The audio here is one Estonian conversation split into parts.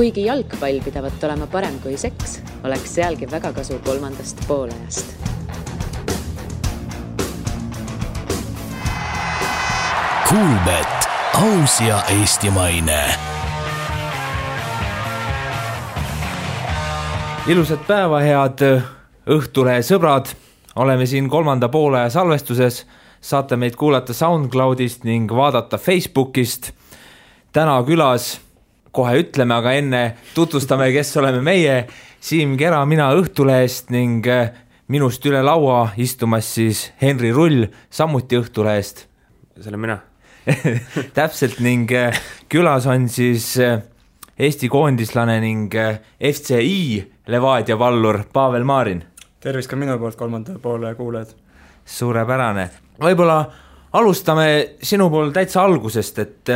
Kuigi jalgpall pidavat olema parem kui seks, oleks sealgi väga kasu 3. poolajast. Kuulbet, aus ja eestimaine. Ilusat päeva, head Õhtulehe sõbrad. Oleme siin 3. poolaja salvestuses. Saate meid kuulata SoundCloudist ning vaadata Facebookist. Täna külas, kohe ütleme, aga enne tutvustame, kes oleme meie. Siim Kera, mina Õhtulehest ning minust üle laua istumas siis Henri Rull, samuti Õhtulehest. See olen mina. Täpselt, ning külas on siis Eesti koondislane ning FCI Levadia pallur Pavel Maarin. Tervis ka minu poolt 3. poole kuuled. Suurepärane. Võib-olla alustame sinu pool täitsa algusest, et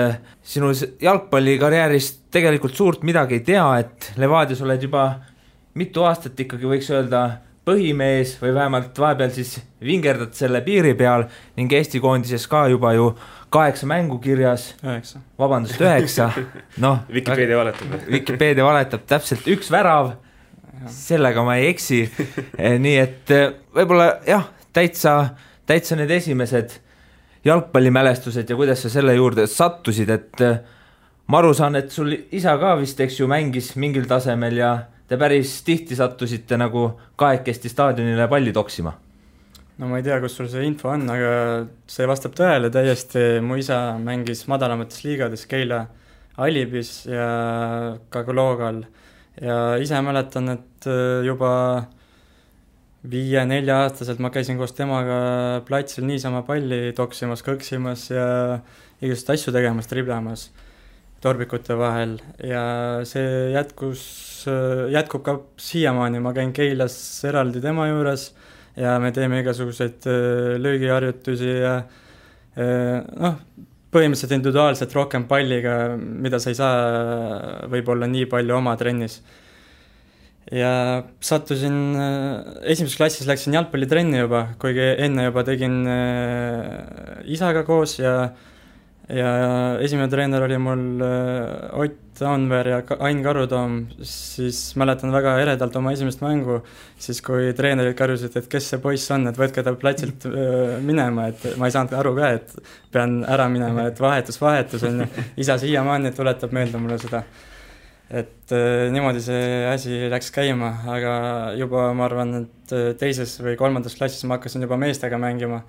sinu jalgpallikarjäärist tegelikult suurt midagi ei tea, et Levadias oled juba mitu aastat ikkagi võiks öelda põhimees või vähemalt vahepeal siis vingerdad selle piiri peal ning Eesti koondises ka juba ju 8 mängu kirjas. 9. Vabandust, 9. No, Wikipedia valetab täpselt 1 värav, sellega ma ei eksi. Nii et võib-olla jah, täitsa need esimesed jalgpallimälestused ja kuidas sa selle juurde sattusid, et ma aru saan, et sul isa ka vist eks ju mängis mingil tasemel ja te päris tihti sattusite nagu kahekesti staadionile palli toksima. No ma ei tea, kus sul see info on, aga see vastab tõele täiesti. Mu isa mängis madalamates liigades Keila Alibis ja ka Loogal ja ise mäletan, et juba 5-4 aastaselt ma käisin koos temaga platsil niisama palli toksimas, kõksimas ja igasugust asju tegemas, triblamas torbikute vahel ja see jätkub ka siiamaani. Ma käin Keilas eraldi tema juures ja me teeme igasuguseid löögiharjutusi ja põhimõtteliselt individuaalselt rohkem palliga, mida sa ei saa võib-olla nii palju oma trennis. Ja sattusin, esimeses klassis läksin jalgpallitrenni juba, kuigi enne juba tegin isaga koos ja esimene treener oli mul Ott Anver ja Ain Karutoom, siis mäletan väga eredalt oma esimest mängu, siis kui treenerid karjusid, et kes see poiss on, et võtke ta platsilt minema, et ma ei saanud aru ka, et pean ära minema, et vahetus on ja isa siiamaani tuletab meelde mulle seda. Et niimoodi see asi läks käima, aga juba ma arvan, et 2. või 3. klassis ma hakkasin juba meestega mängima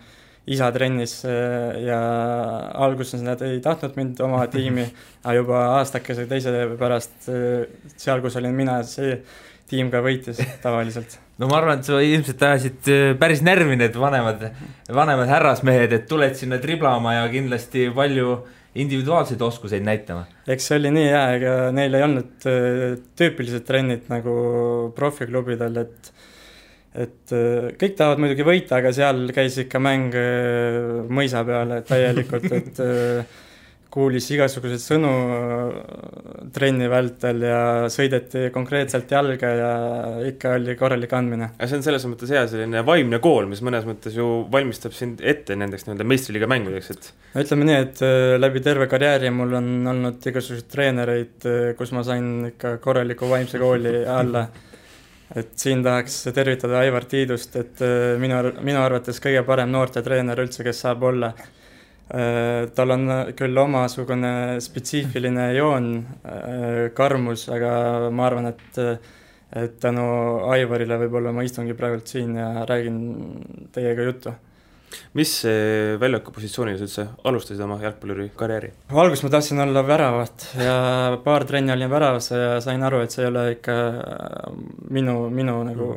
isa trennis ja alguses nad ei tahtnud mind oma tiimi, aga juba aastakese teise pärast seal, kus olin mina, see tiim ka võitis tavaliselt. No ma arvan, et sa ilmselt ajasid päris närvi need vanemad härrasmehed, et tuled sinna triblama ja kindlasti palju individuaalseid oskuseid näitama. Eks see oli nii hea, ega neil ei olnud tüüpilised trennid nagu profiklubidel, et kõik tahavad muidugi võita, aga seal käis ikka mäng mõisa peale täielikult, et kuulis igasuguseid sõnu trenni vältel ja sõideti konkreetselt jalga ja ikka oli korralik andmine. See on selles mõttes hea selline vaimne kool, mis mõnes mõttes ju valmistab sind ette nendeks meistriliiga mängudeks. Ütleme nii, et läbi terve karjääri mul on olnud igasuguseid treenereid, kus ma sain ikka korraliku vaimse kooli alla. Et siin tahaks tervitada Aivar Tiidust, et minu arvates kõige parem noorte treener üldse, kes saab olla. Tal on küll omasugune spetsiifiline joon, karmus, aga ma arvan, et tänu Aivarile võib-olla ma istungi praegult siin ja räägin teiega juttu. Mis väljaku positsioonil üldse alustasid oma jalgpalluri karjääri? Alguses ma tahtsin olla väravat ja paar trenni olin väravas ja sain aru, et see ei ole ikka minu nagu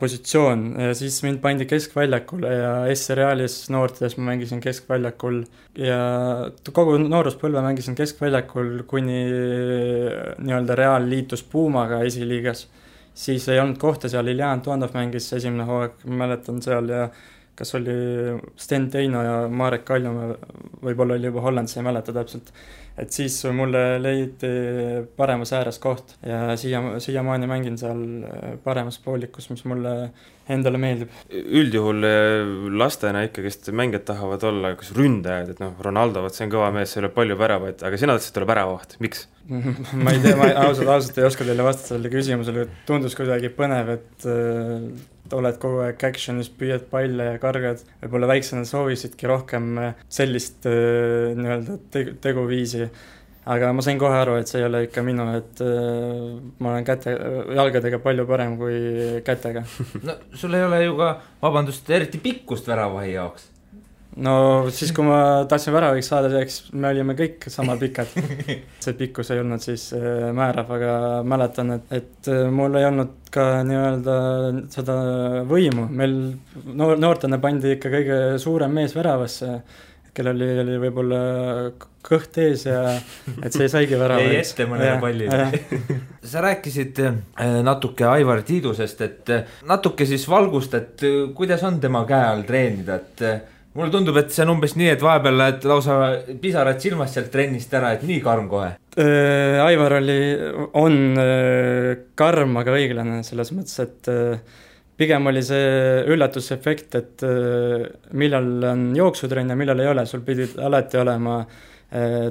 positsioon. Ja siis mind pandi keskväljakule ja S-Reaalis noortes ma mängisin keskväljakul ja kogu nooruspõlve mängisin keskväljakul, kuni nii-öelda Real liitus Puumaga esiliigas. Siis ei olnud kohta seal, Iljan Tuandov mängis esimene hooaeg, mäletan seal ja kas oli Sten Teino ja Marek Kaljumäe, võib-olla oli juba Hollandis, ei mäleta täpselt. Et siis mulle leiti paremas ääres koht ja siiamaani mängin seal paremas poolikus, mis mulle endale meeldib. Üldjuhul lastena ikkagist mängijad tahavad olla kas ründajad, et Ronaldo, see on kõva mees, see ole palju väravaid, aga sina tahtsid olla väravaht, miks? Ma ei tea, ma ausalt ei oska teile vastata selle küsimusele, tundus kuidagi põnev, et oled kogu aeg actionis, püüad palle ja kargad, võib-olla väiksena soovisidki rohkem sellist nii-öelda teguviisi, aga ma sain kohe aru, et see ei ole ikka minu, et ma olen jalgadega palju parem kui kätega. No sul ei ole ju ka, vabandust, eriti pikkust väravahi jaoks. No siis, kui ma tahtsin väraviks saada, me olime kõik sama pikad. See pikkus ei olnud siis määrav, aga mäletan, et mul ei olnud ka nii-öelda seda võimu. Meil noortena pandi ikka kõige suurem mees väravasse, kellel oli võib-olla kõht ees ja et see saigi värava. Ei ette mõnele pallile. Sa rääkisid natuke Aivar Tiidusest, et natuke siis valgust, et kuidas on tema käe all treenida, et mulle tundub, et see on umbes nii, et vahepeal lähed lausa pisarad silmast sealt trennist ära, et nii karm kohe. Aivar on karm, aga õiglane selles mõttes, et pigem oli see üllatusefekt, et millal on jooksutrenn ja millal ei ole, sul pidid alati olema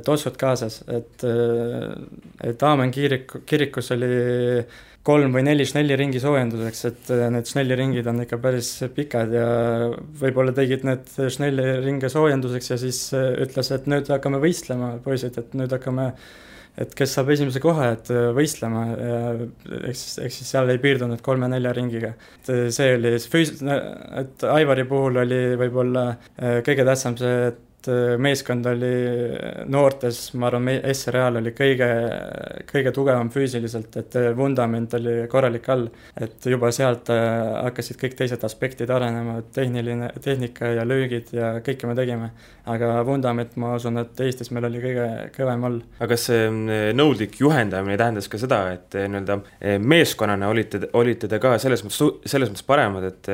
tossud kaasas, et Aamen kirikus oli 3 või 4 šnelliringi soojenduseks, et need šnelliringid on ikka päris pikad ja võib-olla tegid need šnelliringe soojenduseks ja siis ütles, et nüüd hakkame võistlema, poisid, et nüüd hakkame, et kes saab esimese koha, et võistlema ja eks siis seal ei piirdunud 3-4 ringiga. Et see oli, et Aivari puhul oli võib-olla kõige tähtsam see, et meeskond oli noortes, ma arvan, S-Real oli kõige tugevam füüsiliselt, et vundament oli korralik all, et juba sealt hakkasid kõik teised aspektid arenema, tehnika ja löögid ja kõike me tegime, aga vundament, ma usun, et Eestis meil oli kõige kõvem all. Aga see nõudlik juhendamine tähendas ka seda, et meeskonnana olite te ka selles mõttes paremad, et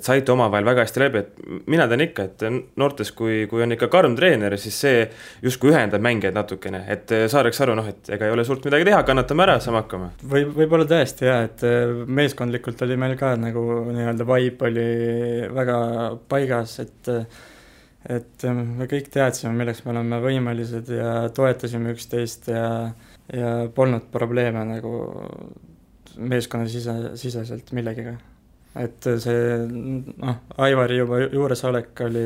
saite omavahel väga hästi läbi, et mina tean ikka, et noortes, kui on ikka karm treener, siis see justkui ühendab mängijaid natukene, et saadaks aru, et ega ei ole suurt midagi teha, kannatame ära, saame hakkama. Võib-olla tõesti jah, et meeskondlikult oli meil ka nagu nii-öelda vibe oli väga paigas, et me kõik teadsime, milleks me oleme võimelised ja toetasime üksteist ja polnud probleeme nagu meeskonna siseselt millegiga. Et see, Aivari juba juuresolek oli,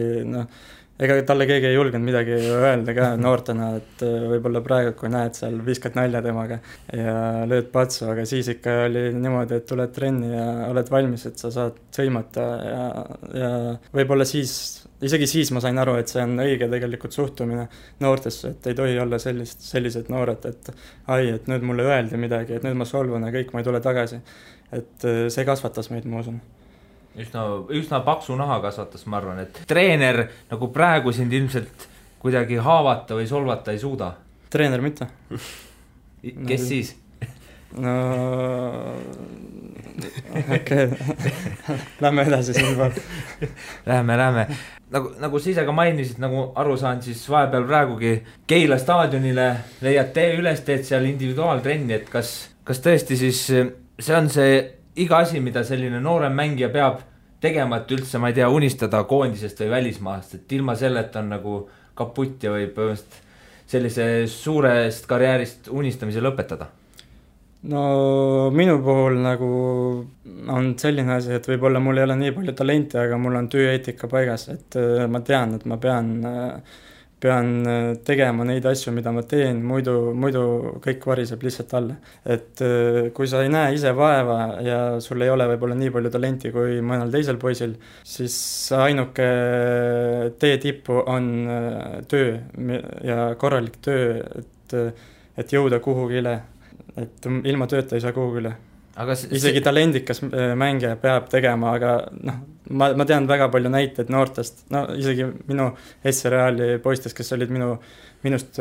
ega talle keegi ei julgenud midagi öelda ka noortena, et võib-olla praegu, kui näed seal, viskad nalja temaga ja lööd patsu, aga siis ikka oli niimoodi, et tuled trenni ja oled valmis, et sa saad sõimata ja võib-olla isegi siis ma sain aru, et see on õige tegelikult suhtumine noortesse, et ei tohi olla sellised noored, et nüüd mulle öeldi midagi, et nüüd ma solvun ja kõik, ma ei tule tagasi. Et see kasvatas meid, ma usun. Üsna paksu naha kasvatas, ma arvan, et treener nagu praegu sind ilmselt kuidagi haavata või solvata ei suuda. Treener mitte. Kes siis? No okei. Lähme edasi siin pool. Lähme. Nagu sa ise ka mainisid, nagu aru saan, siis vahepeal praegugi Keila staadionile leiad üles, teed seal individuaaltrenni, et kas tõesti siis see on see iga asi, mida selline noorem mängija peab tegema, et üldse, ma ei tea, unistada koondisest või välismaast, et ilma selleta on nagu kaputt ja võib sellise suurest karjäärist unistamise lõpetada? No minu puhul nagu on selline asi, et võib-olla mul ei ole nii palju talenti, aga mul on tööeetika paigas, et ma tean, et ma pean tegema neid asju, mida ma teen, muidu kõik variseb lihtsalt alla. Et kui sa ei näe ise vaeva ja sul ei ole võib-olla nii palju talenti kui mõnel teisel poisil, siis ainuke tee tippu on töö ja korralik töö, et jõuda kuhugile, et ilma tööta ei saa kuhugile. Isegi talendikas mängija peab tegema, aga ma tean väga palju näiteid noortest, isegi minu S-Reali poistest, kes olid minust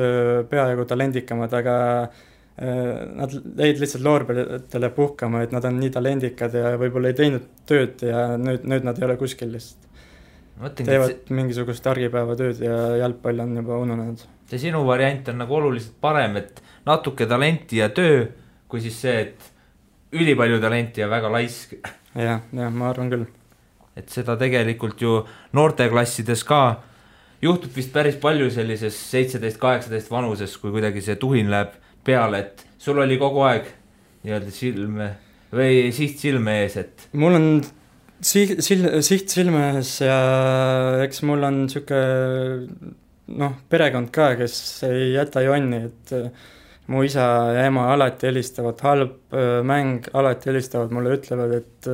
peaaegu talendikamad, aga nad jäid lihtsalt loorberitele puhkama, et nad on nii talendikad ja võib-olla ei teinud tööd ja nüüd nad ei ole kuskil lihtsalt. teevad mingisugust argipäevatööd ja jalgpall on juba ununenud. See sinu variant on nagu oluliselt parem, et natuke talenti ja töö, kui siis see, et ülipalju talenti ja väga laisk. Ja, ma arvan küll. Et seda tegelikult ju noorteklassides ka juhtub vist päris palju sellises 17-18 vanuses, kui kuidagi see tuhin läheb peale, et sul oli kogu aeg nii-öelda siht silme ees, et mul on siht silme ees ja eks mul on siuke perekond ka, kes ei jäta jonni, et mu isa ja ema alati helistavad, halb mäng alati helistavad, mulle ütlevad, et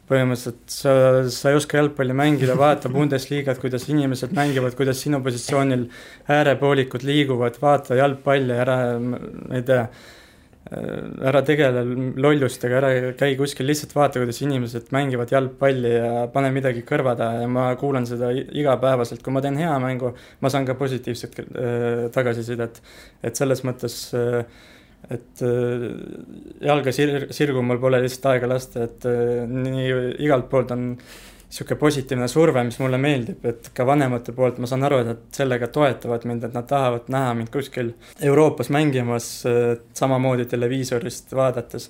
põhimõtteliselt sa ei oska jalgpalli mängida, vaata Bundesliigat, kuidas inimesed mängivad, kuidas sinu positsioonil äärepoolikud liiguvad, vaata jalgpalli, ära tegele lollustega, ära käi kuskil, lihtsalt vaata, kuidas inimesed mängivad jalgpalli ja pane midagi kõrvada ja ma kuulan seda igapäevaselt, kui ma teen hea mängu, ma saan ka positiivset tagasisidet, et selles mõttes, et jalga sirgu mul pole lihtsalt aega lasta, et nii igalt poolt on siuke positiivne surve, mis mulle meeldib, et ka vanemate poolt ma saan aru, et nad sellega toetavad mind, et nad tahavad näha mind kuskil Euroopas mängimas samamoodi televiisorist vaadates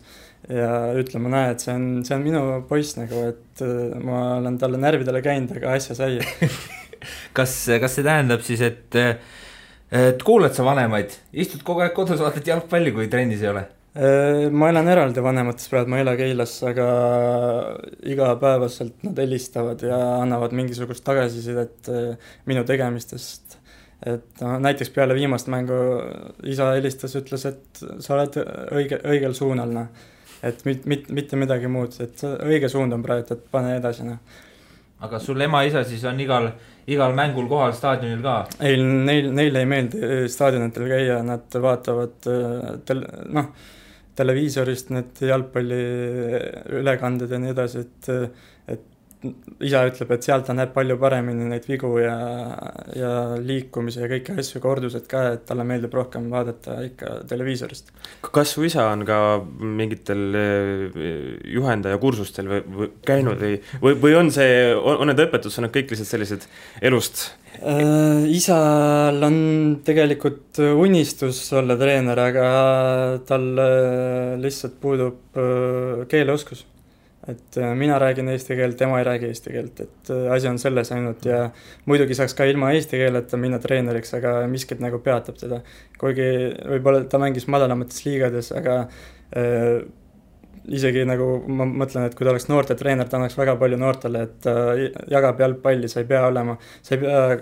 ja ütlema, näe, et see on minu poiss nagu, et ma olen talle närvidele käinud, aga asja sai. Kas see tähendab siis, et kuuled sa vanemaid, istud kogu aeg kodus, vaatad jalgpalli, kui trennis ei ole? Ma elan eraldi vanemates praegu, ma ei ela Keilas, aga igapäevaselt nad helistavad ja annavad mingisugust tagasisidet minu tegemistest. Et näiteks peale viimast mängu isa helistas, ütles, et sa oled õigel suunal, et mitte midagi muud, et õige suund on praegu, et pane edasi. Aga sul ema-isa siis on igal mängul kohal staadionil ka? Ei, neil ei meeldi staadionitel käia, nad vaatavad televiisorist need jalgpalli ülekanded ja nii edasi, et isa ütleb, et sealt ta näeb palju paremini neid vigu ja liikumise ja kõiki asju kordused ka, et talle meeldib rohkem vaadata ikka televiisorist. Kas su isa on ka mingitel juhendaja kursustel või käinud või on need õpetused on kõik lihtsalt sellised elust? Isal on tegelikult unistus olla treener, aga tal lihtsalt puudub keeleoskus. Et mina räägin eesti keelt, tema ei räägi eesti keelt, et asi on selles ainult ja muidugi saaks ka ilma eesti keeleta minna treeneriks, aga miskit nagu peatab teda. Kuigi võib-olla ta mängis madalamates liigades, aga isegi nagu ma mõtlen, et kui ta oleks noorte treener, ta annaks väga palju noortele, et jagab jalgpalli, sa ei pea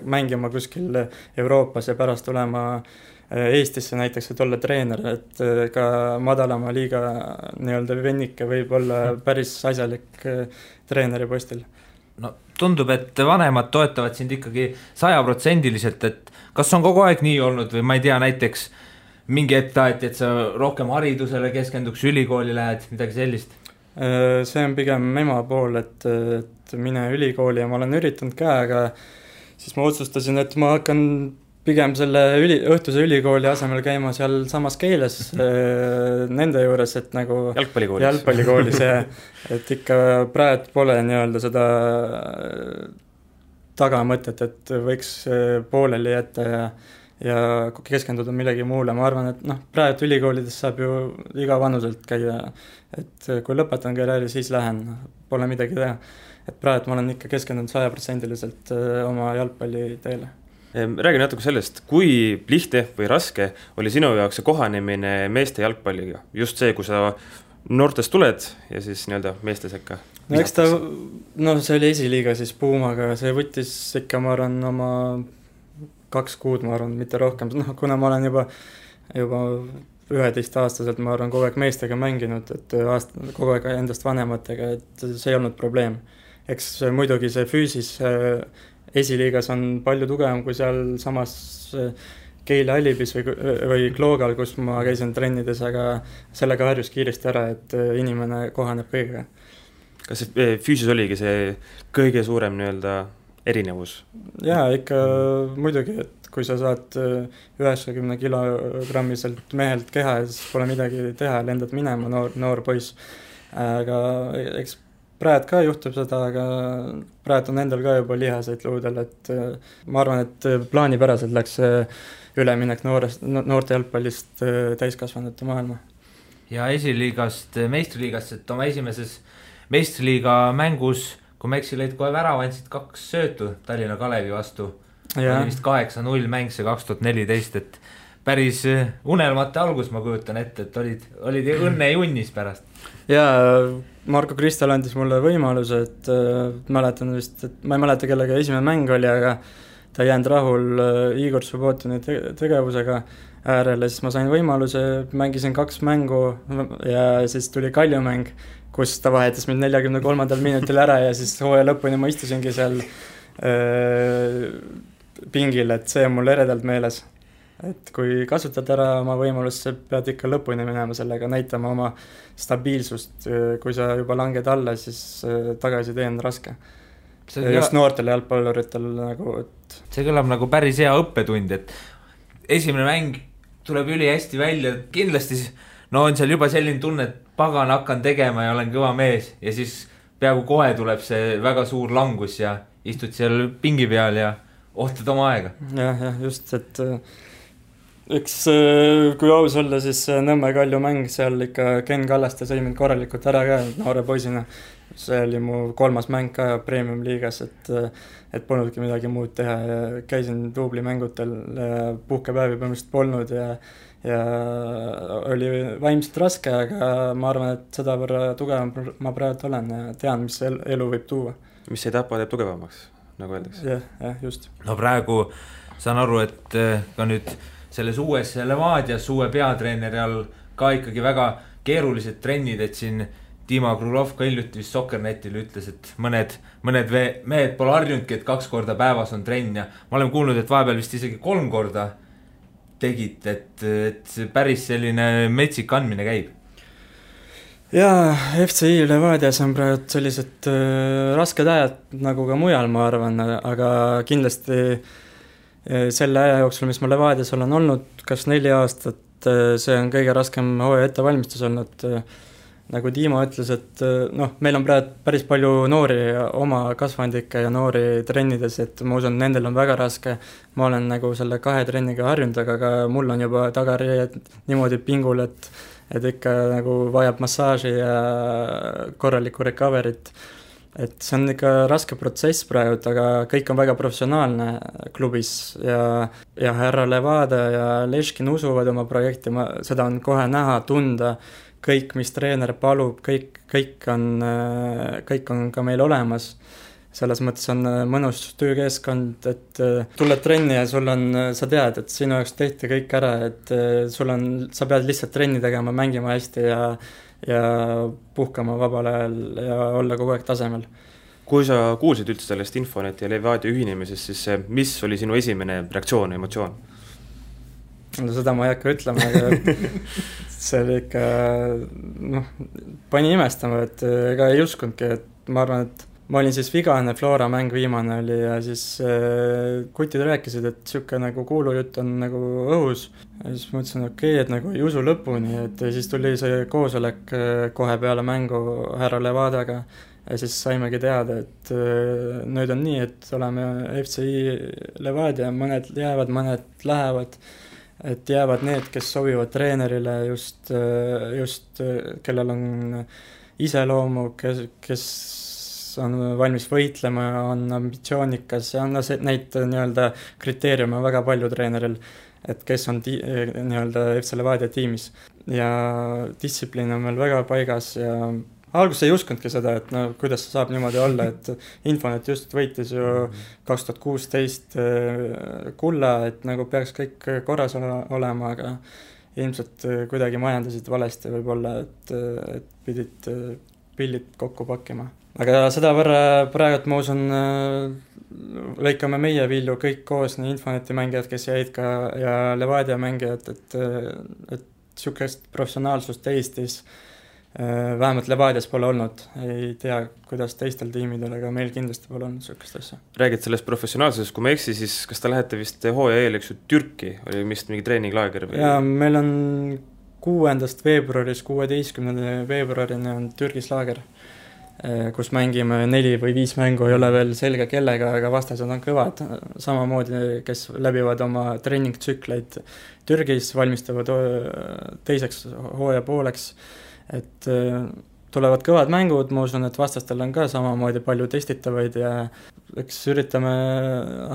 mängima kuskil Euroopas ja pärast olema Eestisse näiteks, et olla treener, et ka madalama liiga nii-öelda vennike võib olla päris asjalik treeneri postil. No tundub, et vanemad toetavad sind ikkagi 100%, et kas on kogu aeg nii olnud või ma ei tea, näiteks mingi hetk taheti, et sa rohkem haridusele keskenduks, ülikooli lähed, midagi sellist? See on pigem ema pool, et mine ülikooli ja ma olen üritanud ka, aga siis ma otsustasin, et ma hakkan pigem selle õhtuse ülikooli asemel käima seal samas Keilas nende juures, et nagu jalgpallikoolis ja et ikka praegu pole nii-öelda seda tagamõtet, et võiks pooleli jätta ja keskenduda millegi muule. Ma arvan, et praegu ülikoolides saab ju iga vanuselt käia, et kui lõpetan karjääri, siis lähen, pole midagi teha. Et praegu ma olen ikka keskendunud 100% oma jalgpalli teele. Räägi natuke sellest, kui lihtne või raske oli sinu jaoks see kohanemine meeste jalgpalliga? Just see, kui sa noortest tuled ja siis nii-öelda meeste sekka? Eks see oli esiliiga siis Puumaga, see võttis ikka, ma arvan, oma 2 kuud, ma arvan, mitte rohkem. Kuna ma olen juba 11-aastaselt, ma arvan, kogu aeg meestega mänginud, et kogu aeg endast vanematega, et see ei olnud probleem. Eks muidugi see füüsis esiliigas on palju tugevam kui seal samas Keila Alibis või Kloogal, kus ma käisin trennides, aga sellega harjus kiiresti ära, et inimene kohaneb kõigega. Kas see füüsis oligi see kõige suurem nii-öelda erinevus? Jaa, ikka muidugi, et kui sa saad 90 kilogrammiselt mehelt keha, siis pole midagi teha, lendad minema, noor poiss. Aga eks praegu ka juhtub seda, aga praegu on endal ka juba lihaseid luudel, et ma arvan, et plaanipäraselt läks üleminek noorte jalgpallist täiskasvanute maailma. Ja esiliigast meistriliigast, et oma esimeses meistriliiga mängus, kui ma eksi, lõid kohe värava, andsid 2 söötu Tallinna Kalevi vastu. Oli vist 8-0 mäng see 2014, et päris unelmate algus, ma kujutan ette, et olid õnne junnis pärast. Jaa, Marko Kristal andis mulle võimaluse, et mäletan vist, et ma ei mäleta, kellega esimene mäng oli, aga ta ei jäänud rahul Igor Subbotini tegevusega äärele, siis ma sain võimaluse, mängisin 2 mängu ja siis tuli Kalju mäng, kus ta vahetas mind 43. minutil ära ja siis hooaja lõpuni ma istusingi seal pingil, et see on mul eredalt meeles. Et kui kasutad ära oma võimalust, sa pead ikka lõpuni minema sellega, näitama oma stabiilsust, kui sa juba langed alla, siis tagasi tee on raske. Just noortele jalgpalluritel nagu, et see kõlab nagu päris hea õppetund, et esimene mäng tuleb üli hästi välja, kindlasti on seal juba selline tunne, et pagan hakkan tegema ja olen kõva mees ja siis peaaegu kohe tuleb see väga suur langus ja istud seal pingi peal ja ohtad oma aega. Jah, just, et üks, kui aus olla, siis Nõmme Kalju mäng, seal ikka Ken Kallaste sõi mind korralikult ära ka noore poisina. See oli mu 3. mäng ka Premium liigas, et polnudki midagi muud teha ja käisin duubli mängutel, puhkepäevi põhimõtteliselt polnud ja oli vaimselt raske, aga ma arvan, et seda võrra tugevam ma praegu olen ja tean, mis elu võib tuua. Mis ei tapa teeb tugevamaks, nagu öeldakse. Jah, just. No praegu saan aru, et ka nüüd selles uues Levadias uue peatreeneri all ka ikkagi väga keerulised trennid, et siin Dima Krulov ka hiljuti vist Soccernetil ütles, et mõned mehed pole harjunudki, et 2 korda päevas on trenn ja ma olen kuulnud, et vahepeal vist isegi 3 korda tegid, et päris selline metsik andmine käib. Jaa, FCI Levadias on praegu sellised rasked ajad nagu ka mujal, ma arvan, aga kindlasti selle aja jooksul, mis ma Levadias olen olnud, kas 4 aastat, see on kõige raskem hooaja ettevalmistus olnud. Nagu Dima ütles, et meil on praegu päris palju noori oma kasvandikke ja noori trennides, et ma usun, nendel on väga raske. Ma olen nagu selle 2 trenniga harjunud, aga mul on juba tagarijed niimoodi pingul, et ikka nagu vajab massaaži ja korralikku recoverit. Et see on ikka raske protsess praegu, aga kõik on väga professionaalne klubis ja härra Levada ja Leškin usuvad oma projekti, seda on kohe näha, tunda. Kõik, mis treener palub, kõik on ka meil olemas. Selles mõttes on mõnus töökeskkond, et tuled trenni ja sa tead, et sinu jaoks tehti kõik ära, et sa pead lihtsalt trenni tegema, mängima hästi ja puhkama vabal ajal ja olla kogu aeg tasemel. Kui sa kuulsid üldse sellest Infonet ja Levadia ühinemisest, siis mis oli sinu esimene reaktsioon, emotsioon? No seda ma ei hakka ütlema, aga see oli ikka, pani imestama, et ega ei uskundki, et ma arvan, et ma olin siis vigane, Flora mäng viimane oli ja siis kutid rääkisid, et siuke nagu kuulujutt on nagu õhus. Ja siis mõtlesin, et nagu ei usu lõpuni, et siis tuli see koosolek kohe peale mängu härra Levadaga ja siis saimegi teada, et nüüd on nii, et oleme FCI Levadia, mõned jäävad, mõned lähevad. Et jäävad need, kes sobivad treenerile just kellel on iseloomu, kes on valmis võitlema, on ambitsioonikas ja neid nii-öelda kriteeriume väga palju treeneril, et kes on nii-öelda FC Levadia tiimis. Ja distsipliin on meil väga paigas ja alguses ei uskundki seda, et kuidas see saab niimoodi olla, et Infonet just võitis ju 2016 kulla, et nagu peaks kõik korras olema, aga ilmselt kuidagi majandasid valesti võib-olla, et pidid pillid kokku pakkima. Aga seda võrra praegu ma usun, lõikame meie vilju kõik koos, nii Infoneti mängijad, kes jäid ka ja Levadia mängijad, et sükest professionaalsust Eestis vähemalt Levadias pole olnud, ei tea, kuidas teistel tiimidel, aga meil kindlasti pole olnud sükest asja. Räägid sellest professionaalsusest, kui ma eksi, siis kas ta lähete vist hooaja eel, eks ju, Türki, oli vist mingi treeninglaager? Ja meil on 6. veebruaris, 16. veebruarini on Türgis laager, kus mängime 4 või 5 mängu, ei ole veel selge kellega, aga vastased on kõvad, samamoodi, kes läbivad oma treeningtsükleid Türgis, valmistavad teiseks hooaja pooleks, et tulevad kõvad mängud, ma usun, et vastastel on ka samamoodi palju testitavaid ja eks üritame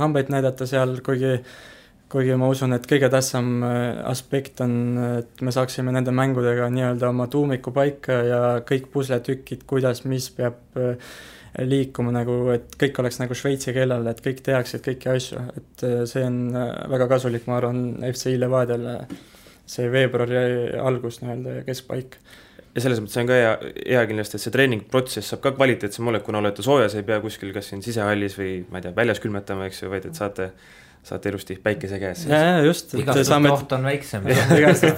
hambaid näidata seal, kuigi ma usun, et kõige tähtsam aspekt on, et me saaksime nende mängudega nii-öelda oma tuumiku paika ja kõik pusletükid, kuidas, mis peab liikuma nagu, et kõik oleks nagu šveitsi keelel, et kõik tehaksid kõiki asju, et see on väga kasulik, ma arvan, FC Levadiale see veebruari algus nii-öelda ja keskpaik. Ja selles mõttes on ka hea kindlasti, et see treeningprotsess saab ka kvaliteetsem olla, kuna olete soojas, ei pea kuskil kas siin sisehallis või ma ei tea, väljas külmetama, eks ju, vaid et saate ilusti päikese käes. Ja just. Igast oht on väiksem. Igast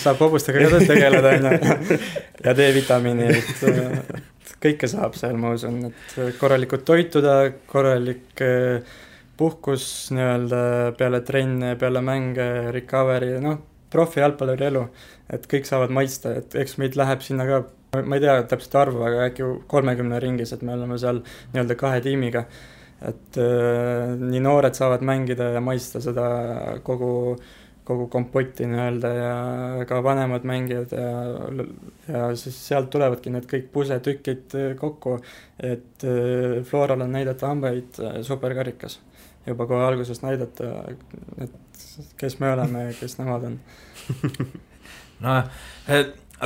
saab hobustega ka tegeleda ja D-vitamiini, et kõike saab seal, ma usun, et korralikult toituda, korralik puhkus nii-öelda peale trenne, peale mänge, recovery, profi jalgpalluri elu, et kõik saavad maitsta, et eks meid läheb sinna ka, ma ei tea täpselt arvu, aga äkki 30 ringis, et me oleme seal nii-öelda 2 tiimiga, et nii noored saavad mängida ja maitsta seda kogu kompotti nii-öelda ja ka vanemad mängijad ja siis sealt tulevadki need kõik pusetükid kokku, et Floral on näidata hambaid superkarikas. Juba kohe algusest näidata, et kes me oleme ja kes nemad on.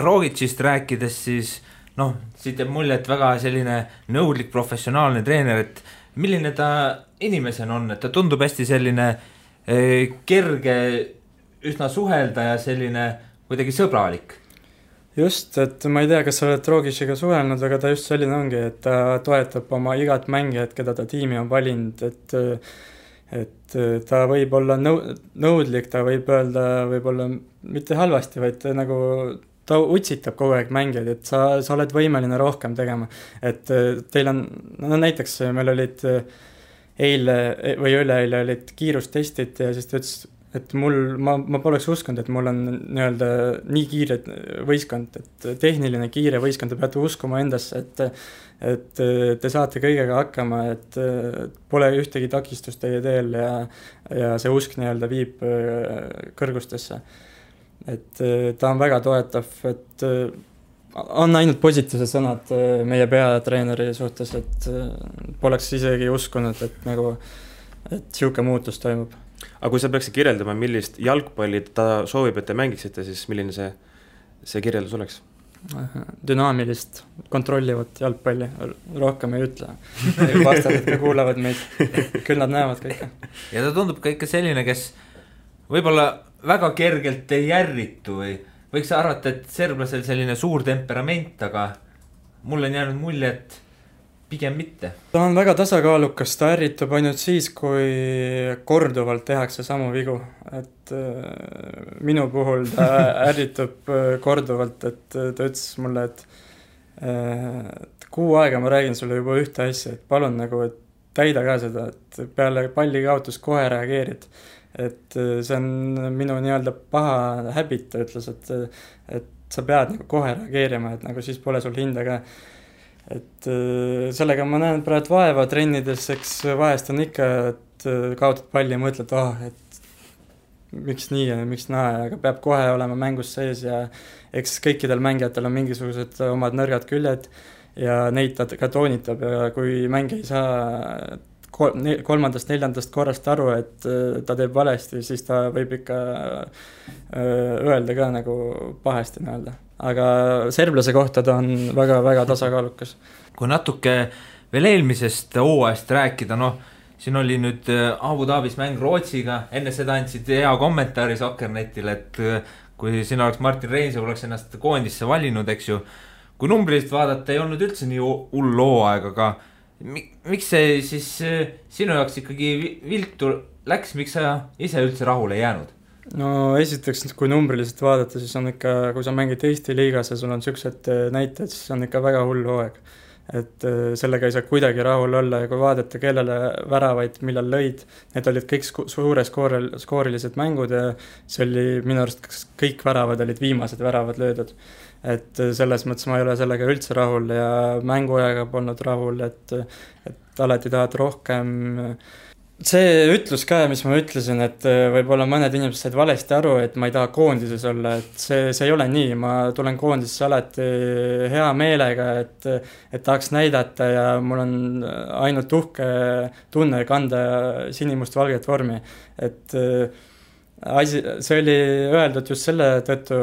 Rogicist rääkides siis, siit jääb mulje, et väga selline nõudlik professionaalne treener, et milline ta inimesena on, et ta tundub hästi selline kerge, üsna suhelda ja selline kuidagi sõbralik. Just, et ma ei tea, kas sa oled Rogiciga suhelnud, aga ta just selline ongi, et ta toetab oma igat mängijat, keda ta tiimi on valinud, et ta võib olla nõudlik, ta võib öelda võib-olla mitte halvasti, vaid nagu ta utsitab kogu aeg mängijad, et sa oled võimeline rohkem tegema, et teil on, näiteks meil olid eile või üleeile olid kiirustestid ja siis ta ütles, et ma poleks uskunud, et mul on nii-öelda nii kiire võistkond, et tehniline kiire võistkond, te peate uskuma endasse, et te saate kõigega hakkama, et pole ühtegi takistust teie teel ja see usk nii-öelda viib kõrgustesse. Et ta on väga toetav, et on ainult positiivsed sõnad meie peatreeneri suhtes, et poleks isegi uskunud, et siuke muutus toimub. Aga kui sa peaksid kirjeldama, millist jalgpalli ta soovib, et te mängiksite, siis milline see kirjeldus oleks? Dünaamilist, kontrollivat jalgpalli, rohkem ei ütle. Vastased ka kuulavad meid, küll nad näevad kõike. Ja ta tundub ka ikka selline, kes võib-olla väga kergelt ei järritu või võiks arvata, et serblasel selline suur temperament, aga mul on jäänud mulje, et pigem mitte. Ta on väga tasakaalukas, ta ärritub ainult siis, kui korduvalt tehakse samu vigu, et minu puhul ta ärritub korduvalt, et ta ütles mulle, et kuu aega ma räägin sulle juba ühte asja, et palun nagu, et täida ka seda, et peale palli kaotus kohe reageerid, et see on minu nii-öelda paha habit, ta ütles, et sa pead nagu kohe reageerima, et nagu siis pole sul hinda ka. Et sellega ma näen praegu vaeva trennides, eks vahest on ikka, et kaotad palli ja mõtled, et miks nii ja miks naa, aga peab kohe olema mängus sees ja eks kõikidel mängijatel on mingisugused omad nõrgad küljed ja neid ta ka toonitab ja kui mängija ei saa 3.-4. korrast aru, et ta teeb valesti, siis ta võib ikka öelda ka nagu pahesti nii-öelda. Aga serblase kohta ta on väga-väga tasakaalukas. Kui natuke veel eelmisest hooajast rääkida, siin oli nüüd Abu Dhabis mäng Rootsiga, enne seda andsid hea kommentaari Sokkernetile, et kui sina oleks Martin Reinsalu, oleks ennast koondisse valinud, eks ju, kui numbrist vaadata, ei olnud üldse nii hull hooaeg, aga miks see siis sinu jaoks ikkagi viltu läks, miks sa ise üldse rahule ei jäänud? No esiteks, kui numbriliselt vaadata, siis on ikka, kui sa mängid Eesti liigas ja sul on sellised näited, siis on ikka väga hull hooaeg. et sellega ei saa kuidagi rahul olla ja kui vaadata, kellele väravaid millal lõid, need olid kõik skoorilised mängud ja see oli minu arust kõik väravad olid viimased väravad löödud. Et selles mõttes ma ei ole sellega üldse rahul ja mänguajaga polnud rahul, et alati tahad rohkem. See ütlus ka, mis ma ütlesin, et võib-olla mõned inimesed said valesti aru, et ma ei taha koondises olla, et see ei ole nii, ma tulen koondisesse alati hea meelega, et tahaks näidata ja mul on ainult uhke tunne kanda sinimust-valget vormi, et see oli öeldud just selle tõttu,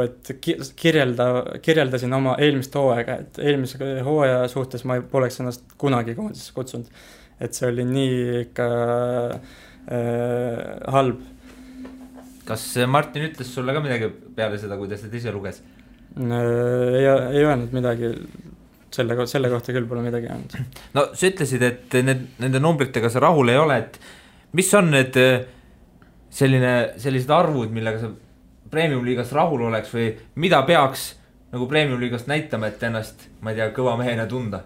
et kirjeldasin oma eelmist hooaega, et eelmise hooaja suhtes ma poleks ennast kunagi koondisesse kutsunud. Et see oli nii ikka halb. Kas Martin ütles sulle ka midagi peale seda, kuidas ta ise luges? Ei öelnud midagi, selle kohta küll pole midagi öelnud. No sa ütlesid, et nende numbritega sa rahul ei ole, et mis on need sellised arvud, millega sa Premium-liigast rahul oleks või mida peaks nagu Premium-liigast näitama, et ennast, ma ei tea, kõva mehena tunda?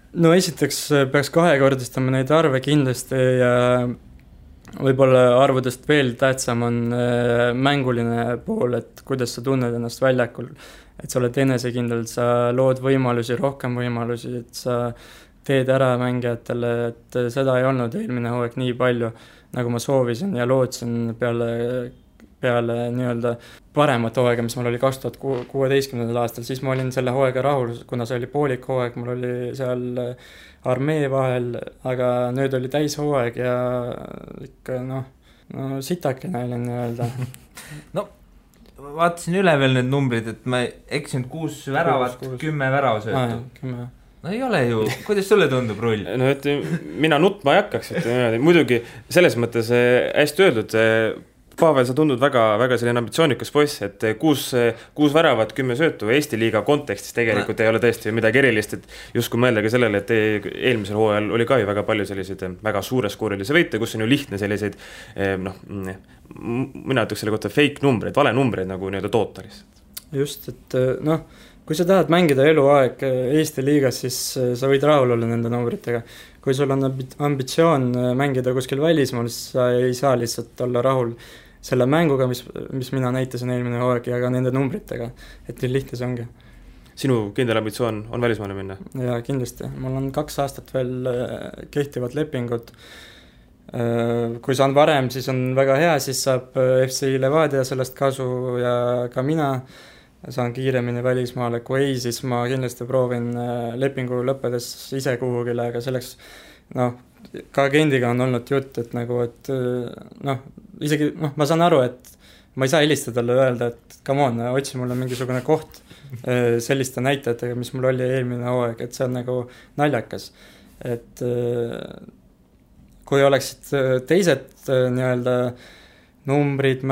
No esiteks peaks kahekordistama neid arve kindlasti ja võib-olla arvudest veel tähtsam on mänguline pool, et kuidas sa tunned ennast väljakul, et sa oled enesekindel, sa lood võimalusi, rohkem võimalusi, et sa teed ära mängijatele, et seda ei olnud eelmine hooaeg nii palju, nagu ma soovisin ja lootsin peale nii-öelda paremat hooaega, mis mul oli 2016. aastal, siis ma olin selle hooaega rahul, kuna see oli poolik hooaeg, mul oli seal armee vahel, aga nüüd oli täishooaeg ja ikka sitakene olin nii-öelda. No vaatasin üle veel need numbrid, et ma eksin 6 väravat, 10 väravasöötu. 10. No ei ole ju, kuidas sulle tundub Rull? No et mina nutma ei hakkaks, et muidugi selles mõttes hästi öeldud, Pavel, sa tundud väga selline ambitsioonikas poiss, et 6 väravat, 10 söötu Eesti liiga kontekstis tegelikult ei ole tõesti midagi erilist, et just kui mõeldagi sellele, et eelmisel hooajal oli ka ju väga palju selliseid väga suure skoorilisi võite, kus on ju lihtne selliseid, mina ütleks selle kohta fake numbreid, vale numbreid nagu nii-öelda toota lihtsalt. Just, et kui sa tahad mängida eluaeg Eesti liigas, siis sa võid rahul olla nende numbritega. Kui sul on ambitsioon mängida kuskil välismaal, siis sa ei saa lihtsalt olla rahul selle mänguga, mis mina näitasin eelmine hooaeg ja ka nende numbritega, et nii lihtne see ongi. Sinu kindel ambitsioon on välismaale minna? Ja kindlasti, mul on 2 aastat veel kehtivad lepingud. Kui saan varem, siis on väga hea, siis saab FC Levadia sellest kasu ja ka mina saan kiiremini välismaale, kui ei, siis ma kindlasti proovin lepingu lõppedes ise kuhugile, aga selleks ka agendiga on olnud jutt, et isegi ma saan aru, et ma ei saa helistada talle öelda, et come on, otsi mulle mingisugune koht selliste näitajatega, mis mul oli eelmine hooaeg, et see on nagu naljakas, et kui oleksid teised nii-öelda numbrid,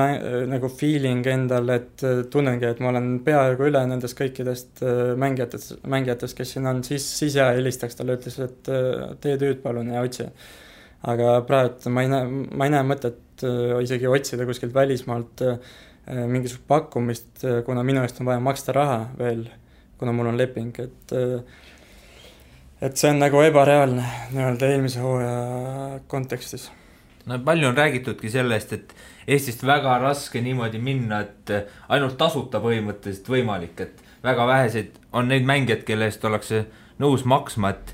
nagu feeling endal, et tunnengi, et ma olen peaaegu üle nendest kõikidest mängijatest, kes siin on, siis jah, helistaks talle, ütles, et tee tööd palun ja otsi. Aga praegu ma ei näe mõtet isegi otsida kuskilt välismaalt mingisugust pakkumist, kuna minu eest on vaja maksta raha veel, kuna mul on leping, et see on nagu ebareaalne nii-öelda eelmise hooaja kontekstis. No palju on räägitudki sellest, et Eestist väga raske niimoodi minna, et ainult tasuta põhimõtteliselt võimalik, et väga väheseid on neid mängijad, kelle eest ollakse nõus maksma, et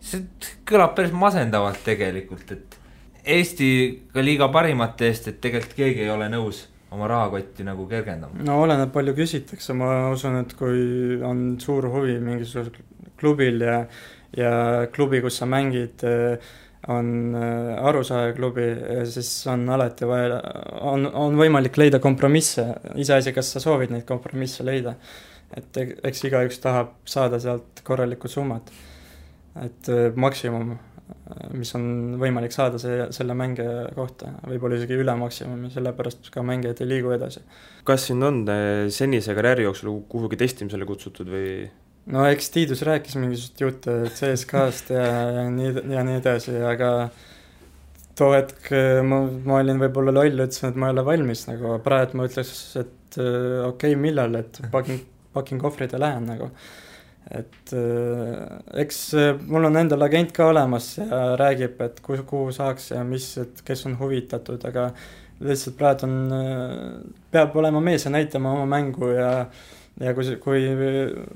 see kõlab päris masendavalt tegelikult, et Eesti ka liiga parimate eest, et tegelikult keegi ei ole nõus oma rahakotti nagu kergendama. No oleneb palju küsitakse, ma usun, et kui on suur huvi mingisugusel klubil ja klubi, kus sa mängid, on Arusaaja klubi, siis on alati vaja, on võimalik leida kompromisse, iseasi, kas sa soovid neid kompromisse leida, et eks igaüks tahab saada sealt korralikku summat, et maksimum, mis on võimalik saada selle mängija kohta, võib-olla isegi üle maksimumi, sellepärast ka mängijad ei liigu edasi. Kas sind on senise karjääri jooksul kuhugi testimisele kutsutud või? No eks Tiidus rääkis mingisugust jutte CSKast ja nii edasi, aga too hetk ma olin võib-olla loll, ütlesin, et ma ei ole valmis, nagu praegu ma ütleks, et okei, millal, et pakin kohvrid ja lähen nagu. et eks mul on endal agent ka olemas ja räägib, et kuhu saaks ja mis, et kes on huvitatud, aga lihtsalt praegu peab olema mees ja näitama oma mängu ja kui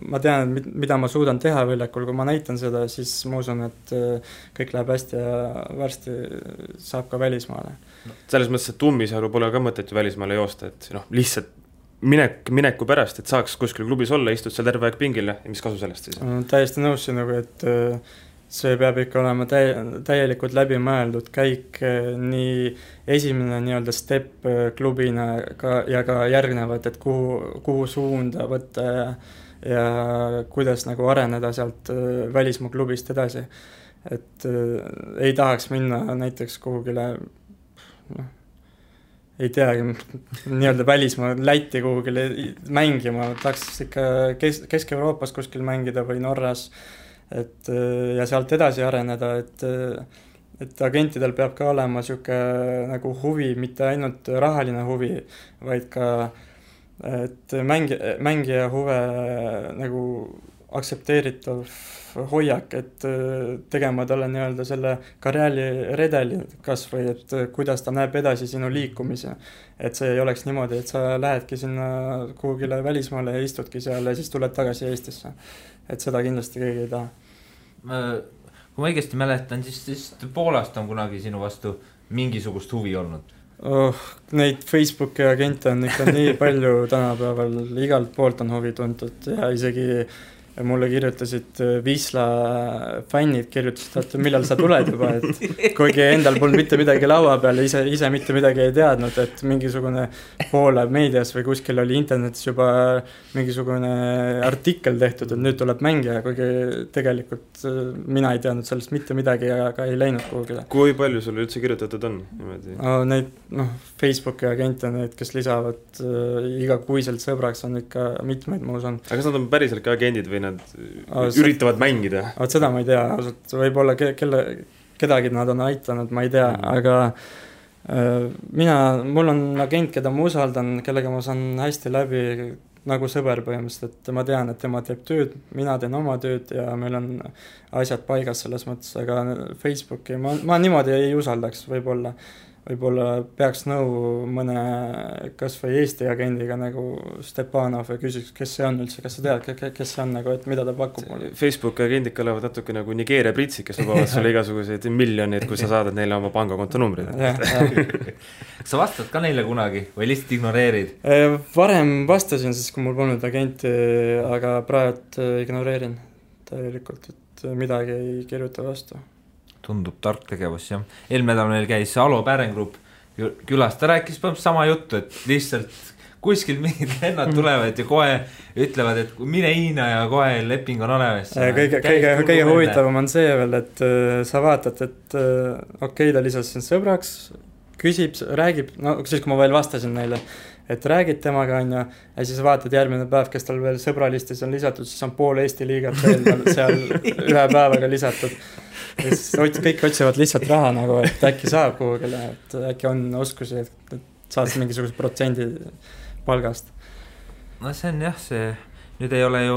ma tean, mida ma suudan teha väljakul, kui ma näitan seda, siis ma usun, et kõik läheb hästi ja varsti saab ka välismaale. Selles mõttes, et Ummisalu pole ka mõtet ju välismaale joosta, et lihtsalt mineku pärast, et saaks kuskil klubis olla, istud seal terve aeg pingile ja mis kasu sellest siis? Täiesti nõus sinuga, et see peab ikka olema täielikult läbimõeldud käik, nii esimene nii-öelda step klubina ja ka järgnevad, et kuhu suunda võtta ja kuidas nagu areneda sealt välismaa klubist edasi. Et ei tahaks minna näiteks kuhugile, ei teagi, nii-öelda välismaa Läti kuhugile mängima, tahaks ikka Kesk-Euroopas kuskil mängida või Norras, ja sealt edasi areneda, et agentidel peab ka olema siuke nagu huvi, mitte ainult rahaline huvi, vaid ka et mängija huve nagu aktsepteeritav hoiak, et tegema talle nii-öelda selle karjääri redeli kas või, et kuidas ta näeb edasi sinu liikumise. Et see ei oleks niimoodi, et sa lähedki sinna kuhugile välismaale ja istudki seal ja siis tuled tagasi Eestisse. Et seda kindlasti keegi ei taha. Kui ma õigesti mäletan, siis Poolast on kunagi sinu vastu mingisugust huvi olnud. Neid Facebooki agente on ikka nii palju tänapäeval, igalt poolt on huvi tuntud ja isegi mulle kirjutasid Wisla fännid, kirjutasid, et millal sa tuled juba, et kuigi endal polnud mitte midagi laua peal, ise mitte midagi ei teadnud, et mingisugune Poola meedias või kuskil oli internetis juba mingisugune artikkel tehtud, et nüüd tuleb mängija, kuigi tegelikult mina ei teadnud sellest mitte midagi ja ka ei läinud kuhugile. Kui palju sulle üldse kirjutatud on? Neid Facebooki agente, need, kes lisavad igakuiselt sõbraks, on ikka mitmeid, ma usun. Aga kas nad on päriselt ka agendid või nad üritavad mängida? Seda ma ei tea, võib-olla kedagi nad on aitanud, ma ei tea, aga mul on agent, keda ma usaldan, kellega ma saan hästi läbi nagu sõber põhimõtteliselt, et ma tean, et tema teeb tööd, mina teen oma tööd ja meil on asjad paigas selles mõttes, aga Facebooki ma niimoodi ei usaldaks, võib-olla peaks nõu mõne kas või Eesti agendiga nagu Stepanov ja küsiks, kes see on üldse, kas sa tead, kes see on nagu, et mida ta pakub mulle. Facebooki agendid kõlavad natuke nagu Nigeeria pritsid, kes lubavad sulle igasuguseid miljoneid, kui sa saadad neile oma pangakonto numbrid. Sa vastad ka neile kunagi või lihtsalt ignoreerid? Varem vastasin, siis kui mul polnud agenti, aga praegu ignoreerin täielikult, et midagi ei kirjuta vastu. Tundub tark tegevus, jah. Eelmedal meil käis Alo Pärenggrupp külas, ta rääkis sama juttu, et lihtsalt kuskil mingid lennad tulevad ja kohe ütlevad, et mine Hiina ja kohe leping on olemas. Kõige huvitavam on see veel, et sa vaatad, et okei, ta lisas siin sõbraks, küsib, räägib, no siis kui ma veel vastasin neile, et räägid temaga on ja siis vaatad järgmine päev, kes tal veel sõbralistis on lisatud, siis on pool Eesti liigat veel seal ühe päevaga lisatud. Kõik otsivad lihtsalt raha nagu, et äkki saab kuhugile, et äkki on oskusi, et saad mingisuguse protsendi palgast. No see on jah, nüüd ei ole ju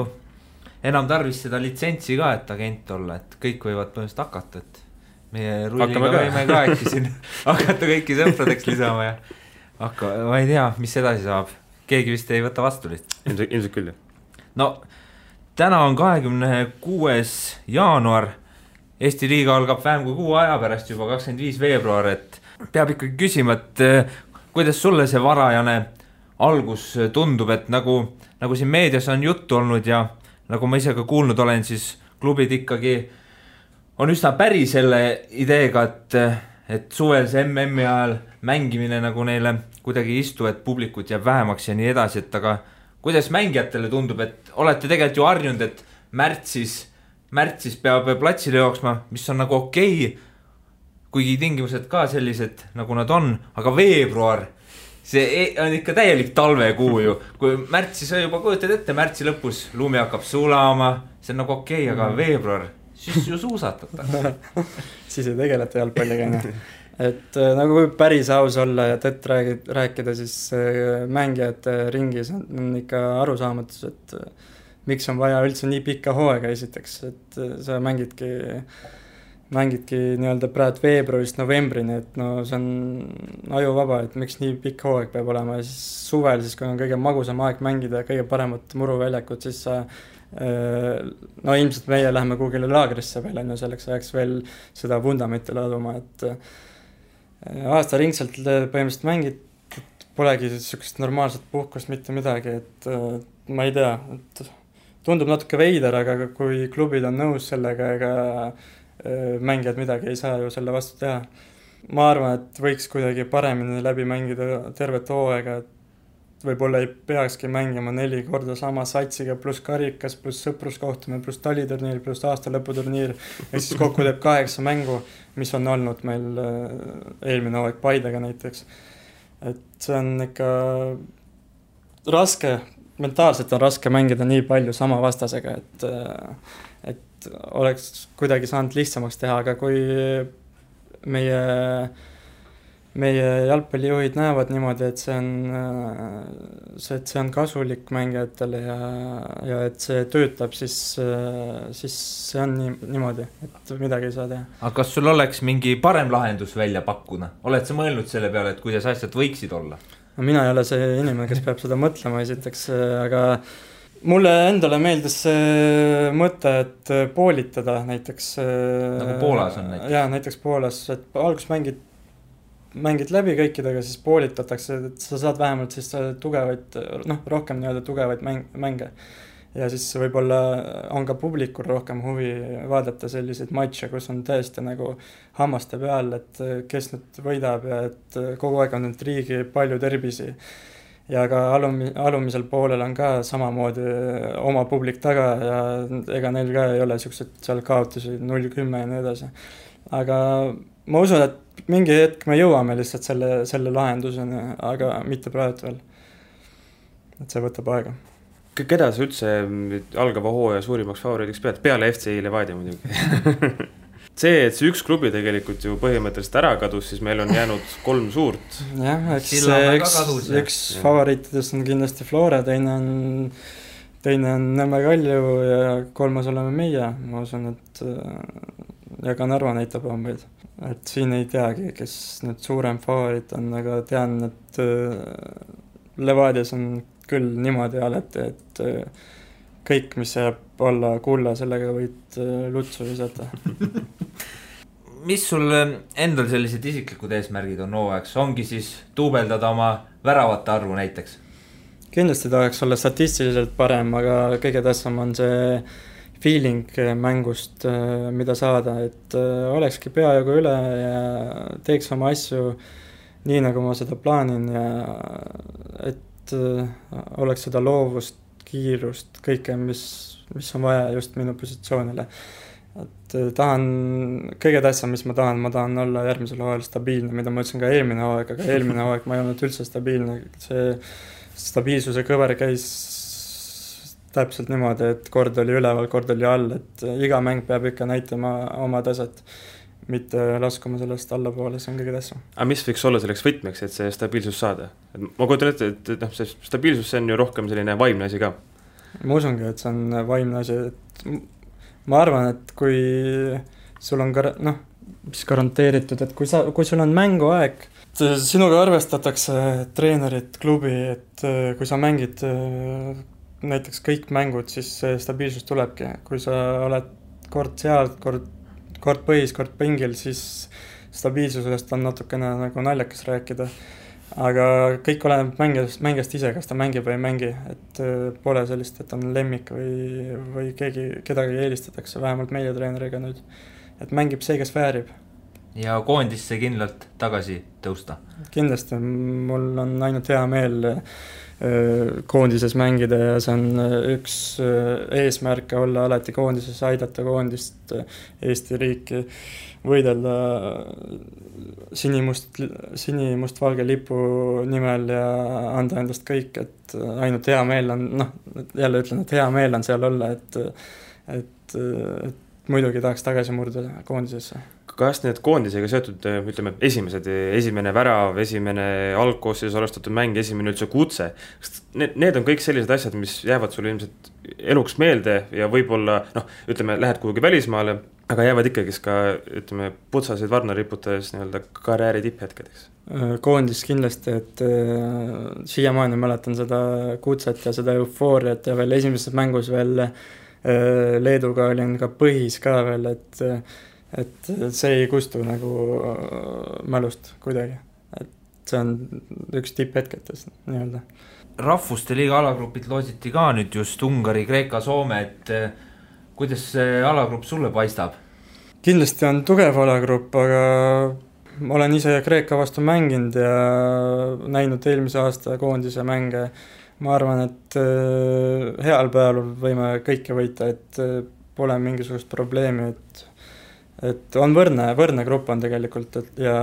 enam tarvis seda litsentsi ka, et agent olla, et kõik võivad põhimõtteliselt hakata, et meie rulliga võime ka äkki siin hakata kõiki sõpradeks lisama ja ma ei tea, mis edasi saab. Keegi vist ei võta vastu lihtsalt. Ilmselt küll, jah. No, täna on 26. jaanuar. Eesti liiga algab vähem kui 6 aja pärast juba 25. veebruar, et peab ikkagi küsima, et kuidas sulle see varajane algus tundub, et nagu siin meedias on juttu olnud ja nagu ma ise ka kuulnud olen, siis klubid ikkagi on üsna päri selle ideega, et suvel see MM-i ajal mängimine nagu neile kuidagi istu, et publikut jääb vähemaks ja nii edasi, et aga kuidas mängijatele tundub, et olete tegelikult ju harjunud, et märtsis peab platsile jooksma, mis on nagu okei, kuigi tingimused ka sellised, nagu nad on, aga veebruar, see on ikka täielik talvekuu ju, kui märtsis juba kujutad ette, märtsi lõpus lumi hakkab sulama, see on nagu okei, aga veebruar, siis ju suusatatakse. Siis ei tegeleta jalgpalliga, et nagu võib päris aus olla ja tõtt rääkida, siis mängijate ringis on ikka arusaamatus, et miks on vaja üldse nii pikka hooaega esiteks, et sa mängidki nii-öelda praegu veebruarist novembrini, et no see on ajuvaba, et miks nii pikk hooaeg peab olema ja siis suvel, siis kui on kõige magusam aeg mängida ja kõige paremat muruväljakut, siis sa no ilmselt meie läheme kuhugile laagrisse veel, selleks ajaks veel seda vundamenti laduma, et aastaringselt põhimõtteliselt mängid, et polegi niisugust normaalset puhkust, mitte midagi, et ma ei tea, et tundub natuke veider, aga kui klubid on nõus sellega, ega mängijad midagi ei saa ju selle vastu teha. Ma arvan, et võiks kuidagi paremini läbi mängida tervet hooaega, et võib-olla ei peakski mängima 4 korda sama satsiga, pluss karikas, pluss sõpruskohtumine, pluss taliturniir, pluss aastalõputurniir, ja siis kokku teeb 8 mängu, mis on olnud meil eelmine hooaeg Paidega näiteks. Et see on ikka raske, mentaalselt on raske mängida nii palju sama vastasega, et oleks kuidagi saanud lihtsamaks teha, aga kui meie jalgpallijuhid näevad niimoodi, et see on kasulik mängijatele ja et see töötab, siis see on niimoodi, et midagi ei saa teha. Aga kas sul oleks mingi parem lahendus välja pakkuda? Oled sa mõelnud selle peale, et kuidas asjad võiksid olla? No, mina ei ole see inimene, kes peab seda mõtlema esiteks, aga mulle endale meeldis see mõte, et poolitada näiteks. Nagu Poolas on näiteks? Jaa, näiteks Poolas, et alguses mängid läbi kõikidega, siis poolitatakse, et sa saad vähemalt siis tugevaid, rohkem nii-öelda tugevaid mänge. Ja siis võib-olla on ka publikul rohkem huvi vaadata selliseid matše, kus on tõesti nagu hammaste peal, et kes nüüd võidab ja et kogu aeg on nüüd riigi palju terbisi. Ja ka alumisel poolel on ka samamoodi oma publik taga ja ega neil ka ei ole sellised seal kaotusi 0-10 ja nii edasi. Aga ma usun, et mingi hetk me jõuame lihtsalt selle lahenduseni, aga mitte praegu veel. Et see võtab aega. Keda sa üldse algava hooaja suurimaks favoriidiks pead? Peale FC Levadia muidugi. See, et see üks klubi tegelikult ju põhimõtteliselt ära kadus, siis meil on jäänud 3 suurt. Jah, üks favoriitidest on kindlasti Flora, teine on Nõmme Kalju ja 3. oleme meie. Ma usun, et ja ka Narva näitab ombeid. Et siin ei teagi, kes nüüd suurem favoriit on, aga tean, et Levadias on küll niimoodi alati, et kõik, mis jääb olla kulla, sellega võid lutsu visata. Mis sul endal sellised isiklikud eesmärgid on hooajaks? Ongi siis duubeldada oma väravate arvu näiteks? Kindlasti tahaks olla statistiliselt parem, aga kõige tähtsam on see feeling mängust, mida saada, et olekski peajagu üle ja teeks oma asju nii, nagu ma seda plaanin ja et oleks seda loovust, kiirust, kõike, mis on vaja just minu positsioonile. Et kõige tähtsam, mis ma tahan olla järgmisel hooajal stabiilne, mida ma ütlesin ka eelmine hooaeg, aga eelmine hooaeg ma ei olnud üldse stabiilne. See stabiilsuse kõver käis täpselt niimoodi, et kord oli üleval, kord oli all, et iga mäng peab ikka näitama oma taset, mitte laskuma sellest allapoole, see on kõige tähtsam. Aga mis võiks olla selleks võtmeks, et see stabiilsus saada? Ma kujutan ette, et see stabiilsus see on ju rohkem selline vaimne asi ka. Ma usungi, et see on vaimne asi. Ma arvan, et kui sul on garanteeritud, et kui sul on mänguaeg, sinuga arvestatakse treenerid, klubi, et kui sa mängid näiteks kõik mängud, siis stabiilsus tulebki. Kui sa oled kord seal, kord põhis, kord pingil, siis stabiilsusest on natukene nagu naljakas rääkida. Aga kõik oleneb mängijast ise, kas ta mängib või ei mängi, et pole sellist, et on lemmik või kedagi eelistatakse, vähemalt meie treeneriga nüüd. Et mängib see, kes väärib. Ja koondisse kindlalt tagasi tõusta? Kindlasti, mul on ainult hea meel koondises mängida ja see on üks eesmärke olla alati koondises, aidata koondist, Eesti riiki, võidelda sinimust-valge lipu nimel ja anda endast kõik, et ainult hea meel on, jälle ütlen, et hea meel on seal olla, et muidugi tahaks tagasi murda koondisesse. Kas need koondisega seotud, ütleme, esimene värav, esimene algkoosseis alustatud mäng, esimene üldse kutse, need on kõik sellised asjad, mis jäävad sulle ilmselt eluks meelde ja võib-olla, ütleme, lähed kuhugi välismaale, aga jäävad ikkagi ka, ütleme, putsasid varna riputades nii-öelda karjääri tipphetkedeks. Koondis kindlasti, et siiamaani mäletan seda kutset ja seda eufooriat ja veel esimeses mängus veel Leeduga olin ka põhis ka veel, et see ei kustu nagu mälust kuidagi. Et see on üks tipphetketest nii-öelda. Rahvuste liiga alagrupid loositi ka nüüd just Ungari, Kreeka, Soome, et kuidas see alagrupp sulle paistab? Kindlasti on tugev alagrupp, aga ma olen ise Kreeka vastu mänginud ja näinud eelmise aasta koondise mänge. Ma arvan, et heal päeval võime kõike võita, et pole mingisugust probleemi, et on võrne grupp on tegelikult ja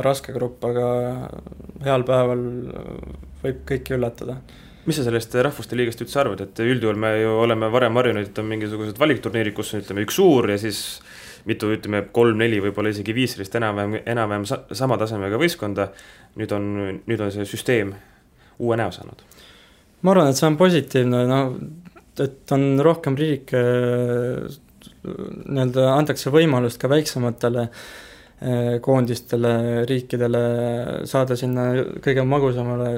raske grupp, aga heal päeval võib kõiki üllatada. Mis sa sellest rahvuste liigast üldse arvad, et üldjuhul me ju oleme varem harjunud, et on mingisugused valikturniirid, kus on ütleme, üks suur ja siis mitu, ütleme, 3-4, võib-olla isegi 5 enam-vähem sama tasemega võistkonda. Nüüd on see süsteem uue näo saanud. Ma arvan, et see on positiivne, et on rohkem riike, antakse võimalust ka väiksematele koondistele, riikidele saada sinna kõige magusamale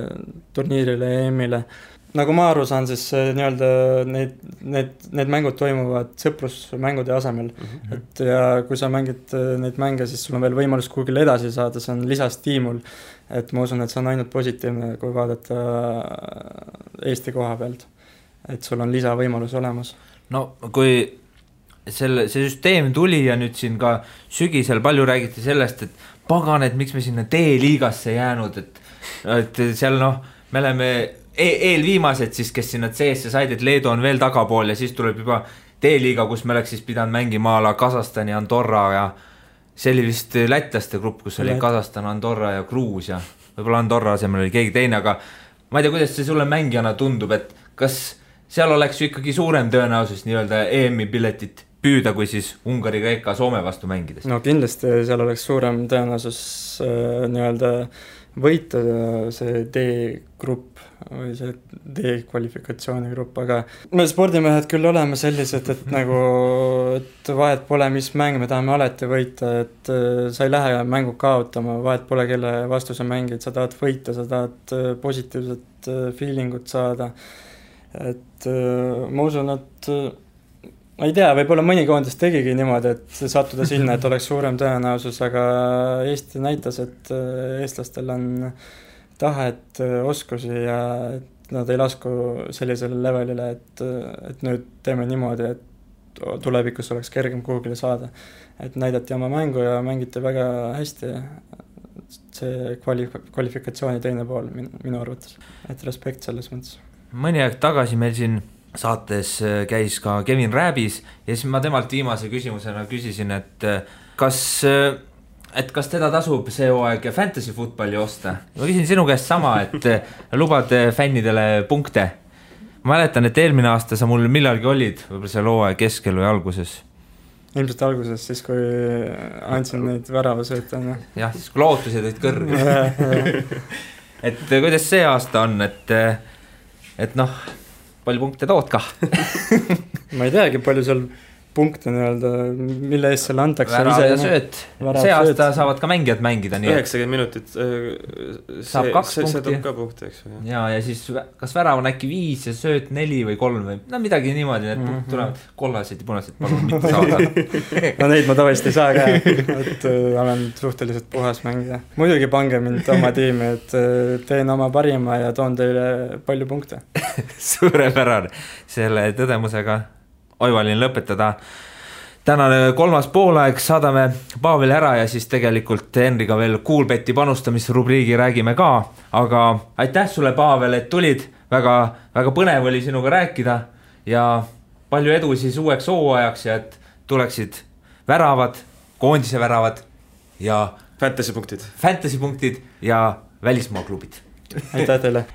turniirile ja EM-ile. Nagu ma aru saan, siis need mängud toimuvad sõprusmängude asemel. Et ja kui sa mängid neid mänge, siis sul on veel võimalus kuhugile edasi saada, see on lisastiimul. Et ma usun, et see on ainult positiivne, kui vaadata Eesti koha pealt. Et sul on lisavõimalus olemas. No kui see süsteem tuli ja nüüd siin ka sügisel palju räägiti sellest, et pagan, et miks me sinna D-liigasse jäänud, et seal me oleme eelviimased siis, kes sinna C-sse said, et Leedu on veel tagapool ja siis tuleb juba D-liiga, kus me oleks siis pidanud mängima ala Kasahstani, Andorra ja see oli vist lätlaste grupp, kus oli Kasahstan, Andorra ja Gruusia. Võib-olla Andorra asemel oli keegi teine, aga ma ei tea, kuidas see sulle mängijana tundub, et kas seal oleks ju ikkagi suurem tõenäosus nii-öelda EM-i piletit püüda, kui siis Ungari, Kreeka, Soome vastu mängides? No kindlasti seal oleks suurem tõenäosus nii-öelda võita see D-grupp või see D-kvalifikatsiooni grupp, aga me spordimehed küll oleme sellised, et vahet pole, mis mäng me tahame alati võita, et sa ei lähe mängu kaotama, vahet pole, kelle vastu sa mängid, sa tahad võita, sa tahad positiivset feelingut saada, et ma usun, et ma ei tea, võib-olla mõni koondis tegigi niimoodi, et sattuda sinna, et oleks suurem tõenäosus, aga Eesti näitas, et eestlastel on tahet, oskusi ja nad ei lasku sellisele levelile, et nüüd teeme niimoodi, et tulevikus oleks kergem kuhugile saada. Et näidati oma mängu ja mängiti väga hästi. See kvalifikatsiooni teine pool minu arvates, et respekt selles mõttes. Mõni aeg tagasi meil siin saates käis ka Kevin Rääbis ja siis ma temalt viimase küsimusena küsisin, et kas teda tasub see hooaeg fantasy footballi osta. Ma küsin sinu käest sama, et lubad fännidele punkte. Ma mäletan, et eelmine aasta sa mul millalgi olid, võib-olla seal hooaeg keskel või alguses. Ilmselt alguses, siis kui andsin neid väravasööta. Jah, siis kui lootused olid kõrged. Et kuidas see aasta on, et palju punkte tood ka? Ma ei teagi, palju seal punkte nii-öelda, mille eest selle antakse. Värav ja sööt. See aasta saavad ka mängijad mängida. 90 minutit saab 2 punkti. Ka punkti, eks. Ja siis kas värav on äkki 5 ja sööt 4 või 3 või midagi niimoodi, need punkt tulevad kollased ja punased, palun mitte saada. No neid ma tavaliselt ei saa ka, et olen suhteliselt puhas mängida. Muidugi pange mind oma tiimi, et teen oma parima ja toon teile palju punkte. Suurepärane. Selle tõdemusega oivalin lõpetada. Tänane 3. poolaeg saadame Paaveli ära ja siis tegelikult Henriga veel Kuulbeti panustamisrubriigi räägime ka, aga aitäh sulle, Paavel, et tulid, väga põnev oli sinuga rääkida ja palju edu siis uueks hooajaks ja et tuleksid väravad, koondise väravad ja fantasy punktid ja välismaa klubid. Aitäh teile.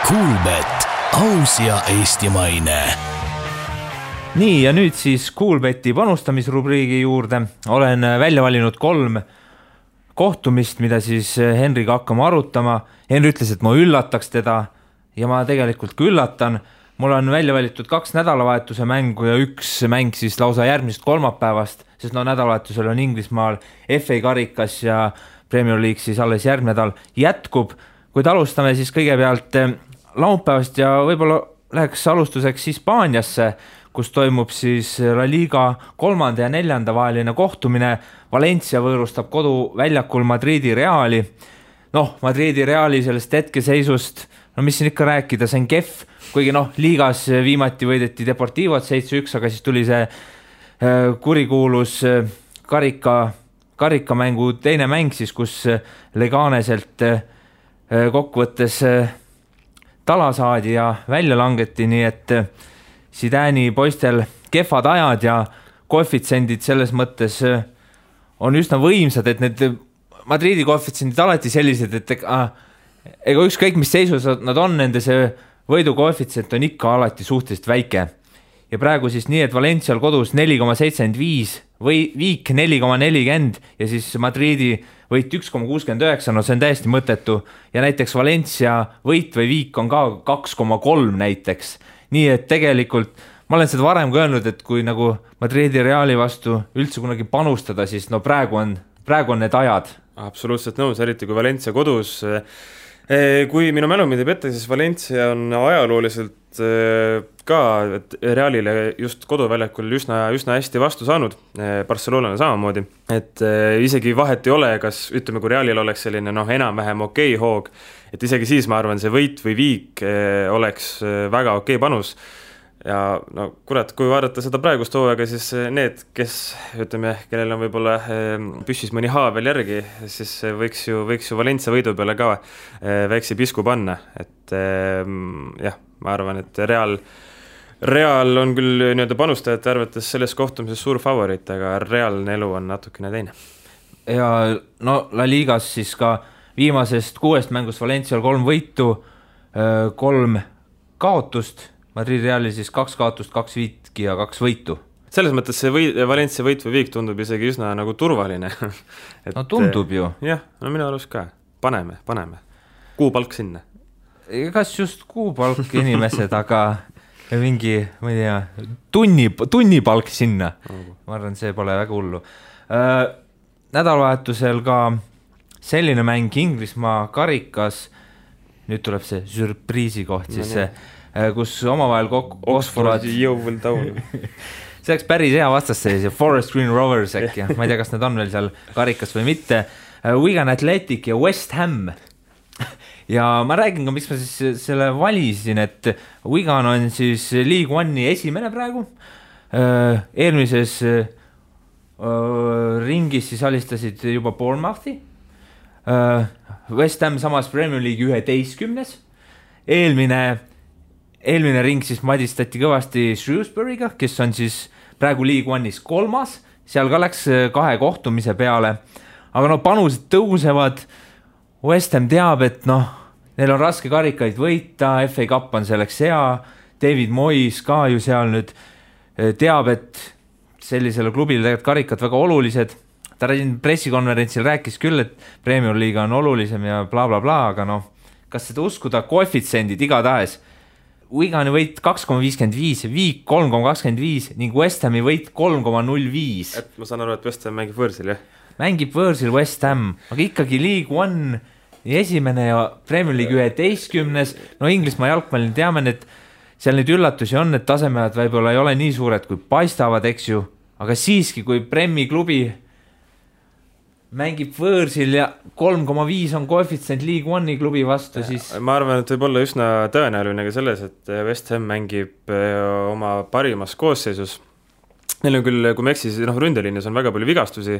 Kuulbet, aus ja eestimaine. Nii, ja nüüd siis Kuulbeti panustamisrubriigi juurde. Olen välja valinud 3 kohtumist, mida siis Henriga hakkama arutama. Henri ütles, et ma üllataks teda ja ma tegelikult ka üllatan. mul on välja valitud 2 nädalavahetuse mängu ja 1 mäng siis lausa järgmisest kolmapäevast, sest nädalavahetusel on Inglismaal FA karikas ja Premier League siis alles järgmine nädal jätkub, kuid alustame siis kõigepealt laupäevast ja võib-olla läheks alustuseks Hispaaniasse, kus toimub siis La Liga 3. ja 4. vaheline kohtumine. Valencia võõrustab koduväljakul Madridi Reali. Madridi Reali sellest hetkeseisust, mis siin ikka rääkida, see on kehv, kuigi liigas viimati võideti Deportivot 7-1, aga siis tuli see kurikuulus karikamängu teine mäng siis, kus Leganeselt kokkuvõttes tala saadi ja välja langeti, nii et Zidani poistel kehvad ajad ja koefitsendid selles mõttes on üsna võimsad, et need Madridi koefitsendid alati sellised, et ega ükskõik mis seisus nad on, nende see võidu koefitsient on ikka alati suhteliselt väike. Ja praegu siis nii, et Valencial kodus 4,75 või viik 4,40 ja siis Madridi võit 1,69, see on täiesti mõttetu. Ja näiteks Valencia võit või viik on ka 2,3 näiteks. Nii et tegelikult ma olen seda varem ka öelnud, et kui nagu Madridi Reali vastu üldse kunagi panustada, siis praegu on need ajad. Absoluutselt nõus, eriti kui Valencia kodus. Kui minu mälu mind ei petta, siis Valencia on ajalooliselt ka Realile just koduväljakul üsna hästi vastu saanud, Barcelonale samamoodi, et isegi vahet ei ole, kas ütleme, kui Realil oleks selline enam-vähem okei hoog, et isegi siis ma arvan, see võit või viik oleks väga okei panus. Ja kurat, kui vaadata seda praegust hooaega, siis need, kes ütleme, kellel on võib-olla püssis mõni haa veel järgi, siis võiks ju Valencia võidu peale ka väikse pisku panna, et jah, ma arvan, et Real on küll panustajate arvates selles kohtumises suur favorit, aga reaalne elu on natukene teine. Ja La Ligas siis ka viimasest 6 mängust Valencial 3 võitu, 3 kaotust, Madrid Reali siis 2 kaotust, 2 viitki ja 2 võitu. Selles mõttes see Valencia võit või viik tundub isegi üsna nagu turvaline. Et, tundub ju. Jah, minu arust ka. Paneme. Kuupalk sinna. Kas just kuupalk inimesed, aga mingi, ma ei tea, tunnipalk sinna. Ma arvan, see pole väga hullu. Nädalavahetusel ka selline mäng Inglismaa karikas, nüüd tuleb see surpriisi koht, siis see kus omavahel Oxford Yeovil Town. See oleks päris hea vastasseis ja Forest Green Rovers äkki, ma ei tea, kas need on veel seal karikas või mitte. Wigan Athletic ja West Ham. Ja ma räägin ka, miks ma siis selle valisin, et Wigan on siis League One'i esimene praegu. Eelmises ringis siis alistasid juba Bournemouthi. West Ham samas Premier League 11. Eelmine ring siis madistati kõvasti Shrewsbury'ga, kes on siis praegu League One'is 3. Seal ka läks 2 kohtumise peale. Aga panused tõusevad. West Ham teab, et neil on raske karikaid võita, FA Cup on selleks hea. David Moyes ka ju seal nüüd teab, et sellisele klubile tegelikult karikad väga olulised. Ta pressikonverentsil rääkis küll, et Premier League on olulisem ja bla bla bla, aga kas seda uskuda, koefitsendid igatahes. Wigani võit 2,55, viik 3,25 ning West Hami võit 3,05. Et ma saan aru, et West Ham mängib võõrsil, jah? Mängib võõrsil West Ham, aga ikkagi League One esimene ja Premier League 11. Inglismaa jalgpallil teame, et seal neid üllatusi on, et tasemed võib-olla ei ole nii suured, kui paistavad, eks ju, aga siiski, kui Premi klubi mängib võõrsil ja 3,5 on koefitsient League One'i klubi vastu, siis ma arvan, et võib olla üsna tõenäoline ka selles, et West Ham mängib oma parimas koosseisus. Neil on küll, kui me eksis, ründeliinis on väga palju vigastusi,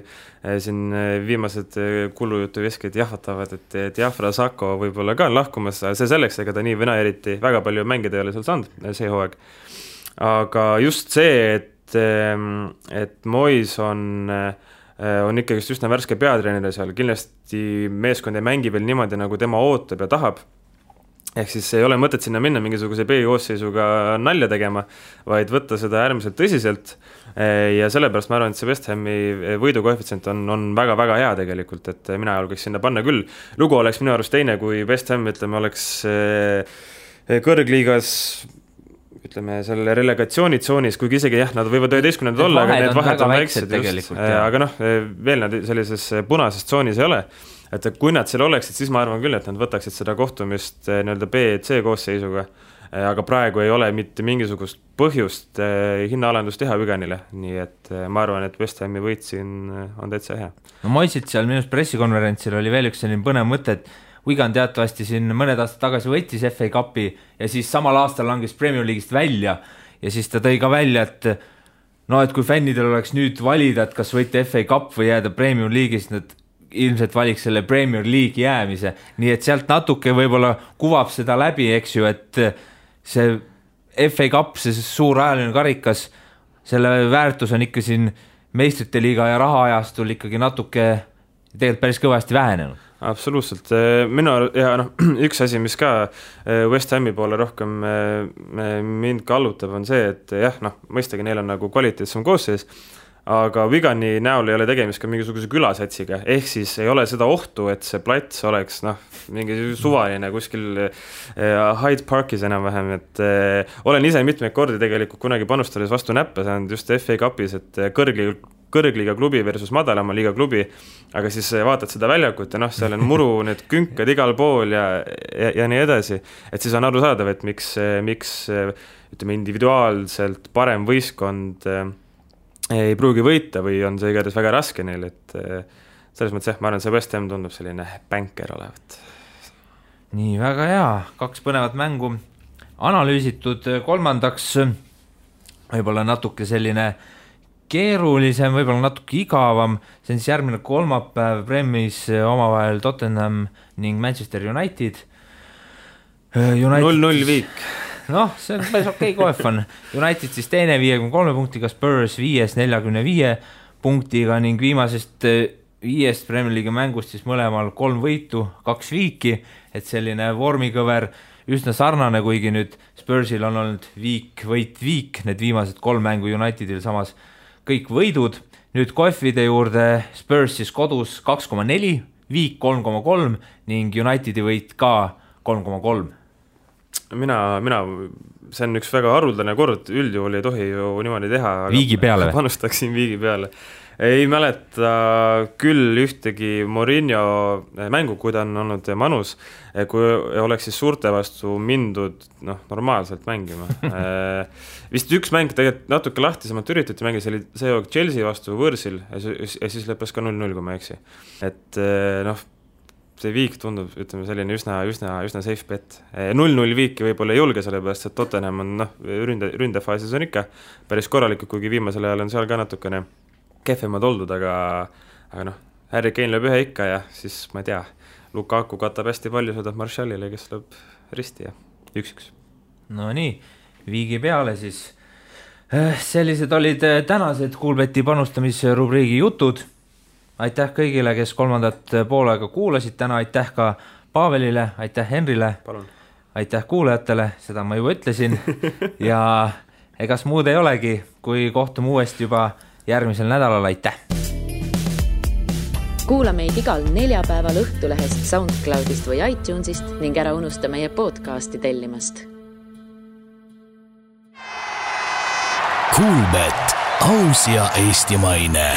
siin viimased kulujutu veskid jahvatavad, et Diafra Sako võib-olla ka on lahkumas, see selleks, ega ta nii vena eriti väga palju mängida ei ole seal saanud see hooaeg. Aga just see, et Moyes on ikkagi üsna värske peatreener seal, kindlasti meeskond ei mängi veel niimoodi, nagu tema ootab ja tahab. Ehk siis ei ole mõtet sinna minna mingisuguse B-koosseisuga nalja tegema, vaid võtta seda äärmiselt tõsiselt ja sellepärast ma arvan, et see West Hami võidukoefitsient on väga-väga hea tegelikult, et mina julgeks sinna panna küll. Lugu oleks minu arust teine, kui West Ham, ütleme, oleks kõrgliigas ütleme, selle relegatsioonitsoonis, kuigi isegi jah, nad võivad 11 olla, aga need vahed on väiksed just, aga noh, veel nad sellises punases tsoonis ei ole. Et kui nad seal oleksid, siis ma arvan küll, et nad võtaksid seda kohtumist nii-öelda B-C koosseisuga, aga praegu ei ole mitte mingisugust põhjust hinnaalandust teha Wiganile, nii et ma arvan, et West Hami võit siin on täitsa hea. No Moisit seal minust pressikonverentsil oli veel üks selline põnev mõte, et Wigan teatavasti siin mõned aastad tagasi võttis FA Cupi ja siis samal aastal langes Premier League'ist välja ja siis ta tõi ka välja, et no, et kui fännidel oleks nüüd valida, et kas võita FA Cup või jääda Premier League'ist, nad ilmselt valiks selle Premier League jäämise, nii et sealt natuke võib-olla kuvab seda läbi, eks ju, et see FA Cup, see suur ajaline karikas, selle väärtus on ikka siin meistrite liiga ja rahaajastul ikkagi natuke tegelikult päris kõvasti vähenenud. Absoluutselt, ja üks asi, mis ka West Hami poole rohkem mind kallutab, on see, et jah, mõistagi neil on nagu kvaliteetsem koosseis, aga Wigani näol ei ole tegemist ka mingisuguse külasatsiga, ehk siis ei ole seda ohtu, et see plats oleks mingi suvaline kuskil Hyde Parkis enam-vähem, et olen ise mitmeid kordi tegelikult kunagi panustades vastu näppe saanud just FA Cupis, et kõrgliiga klubi versus madalama liiga klubi, aga siis vaatad seda väljakut ja seal on muru, need künkad igal pool ja nii edasi, et siis on arusaadav, et miks ütleme individuaalselt parem võistkond ei pruugi võita või on see igatahes väga raske neil, et selles mõttes jah, ma arvan, see West Ham tundub selline bänker olevat. Nii, väga hea, 2 põnevat mängu analüüsitud, kolmandaks võib-olla natuke selline keerulisem, võib-olla natuke igavam, see on siis järgmine kolmapäev Premis omavahel Tottenham ning Manchester United. 0-0 viik. Noh, see on päris okei kohv on. United siis teine 53 punktiga, Spurs 5 45 punktiga ning viimasest 5 Premier League mängust siis mõlemal 3 võitu, 2 viiki, et selline vormikõver üsna sarnane, kuigi nüüd Spursil on olnud viik, need viimased 3 mängu Unitedil samas kõik võidud. Nüüd kohvide juurde Spurs siis kodus 2,4, viik 3,3 ning Unitedi võit ka 3,3. Mina, see on üks väga haruldane kord, üldjuhul ei tohi ju niimoodi teha. Viigi peale või? Panustaksin viigi peale. Ei mäleta küll ühtegi Mourinho mängu, kui ta on olnud manus, kui oleks siis suurte vastu mindud normaalselt mängima. Vist üks mäng tegelikult natuke lahtisemalt üritati mängida, see oli see Chelsea vastu võõrsil ja siis lõppes ka 0-0, kui ma eksi. Et see viik tundub, ütleme, selline üsna safe bet. 0-0 viiki võib-olla ei julge, sellepärast, et Tottenham on ründefaasis on ikka päris korralikult, kuigi viimasel ajal on seal ka natukene kehvemad oldud, aga Harry Kane lööb ühe ikka ja siis, ma ei tea, Lukaku katab hästi palju, sõidab Martialile, kes lööb risti ja 1-1. No nii, viigi peale siis. Sellised olid tänased Kuulbeti panustamisrubriigi jutud. Aitäh kõigile, kes kolmandat poolega kuulasid täna, aitäh ka Paavelile, aitäh Henrile, palun. Aitäh kuulajatele, seda ma juba ütlesin ja egas muud ei olegi, kui kohtume uuesti juba järgmisel nädalal, aitäh! Kuula meid igal neljapäeval Õhtulehest, SoundCloudist või iTunesist ning ära unusta meie podcasti tellimast. Kuulbet, aus ja eestimaine.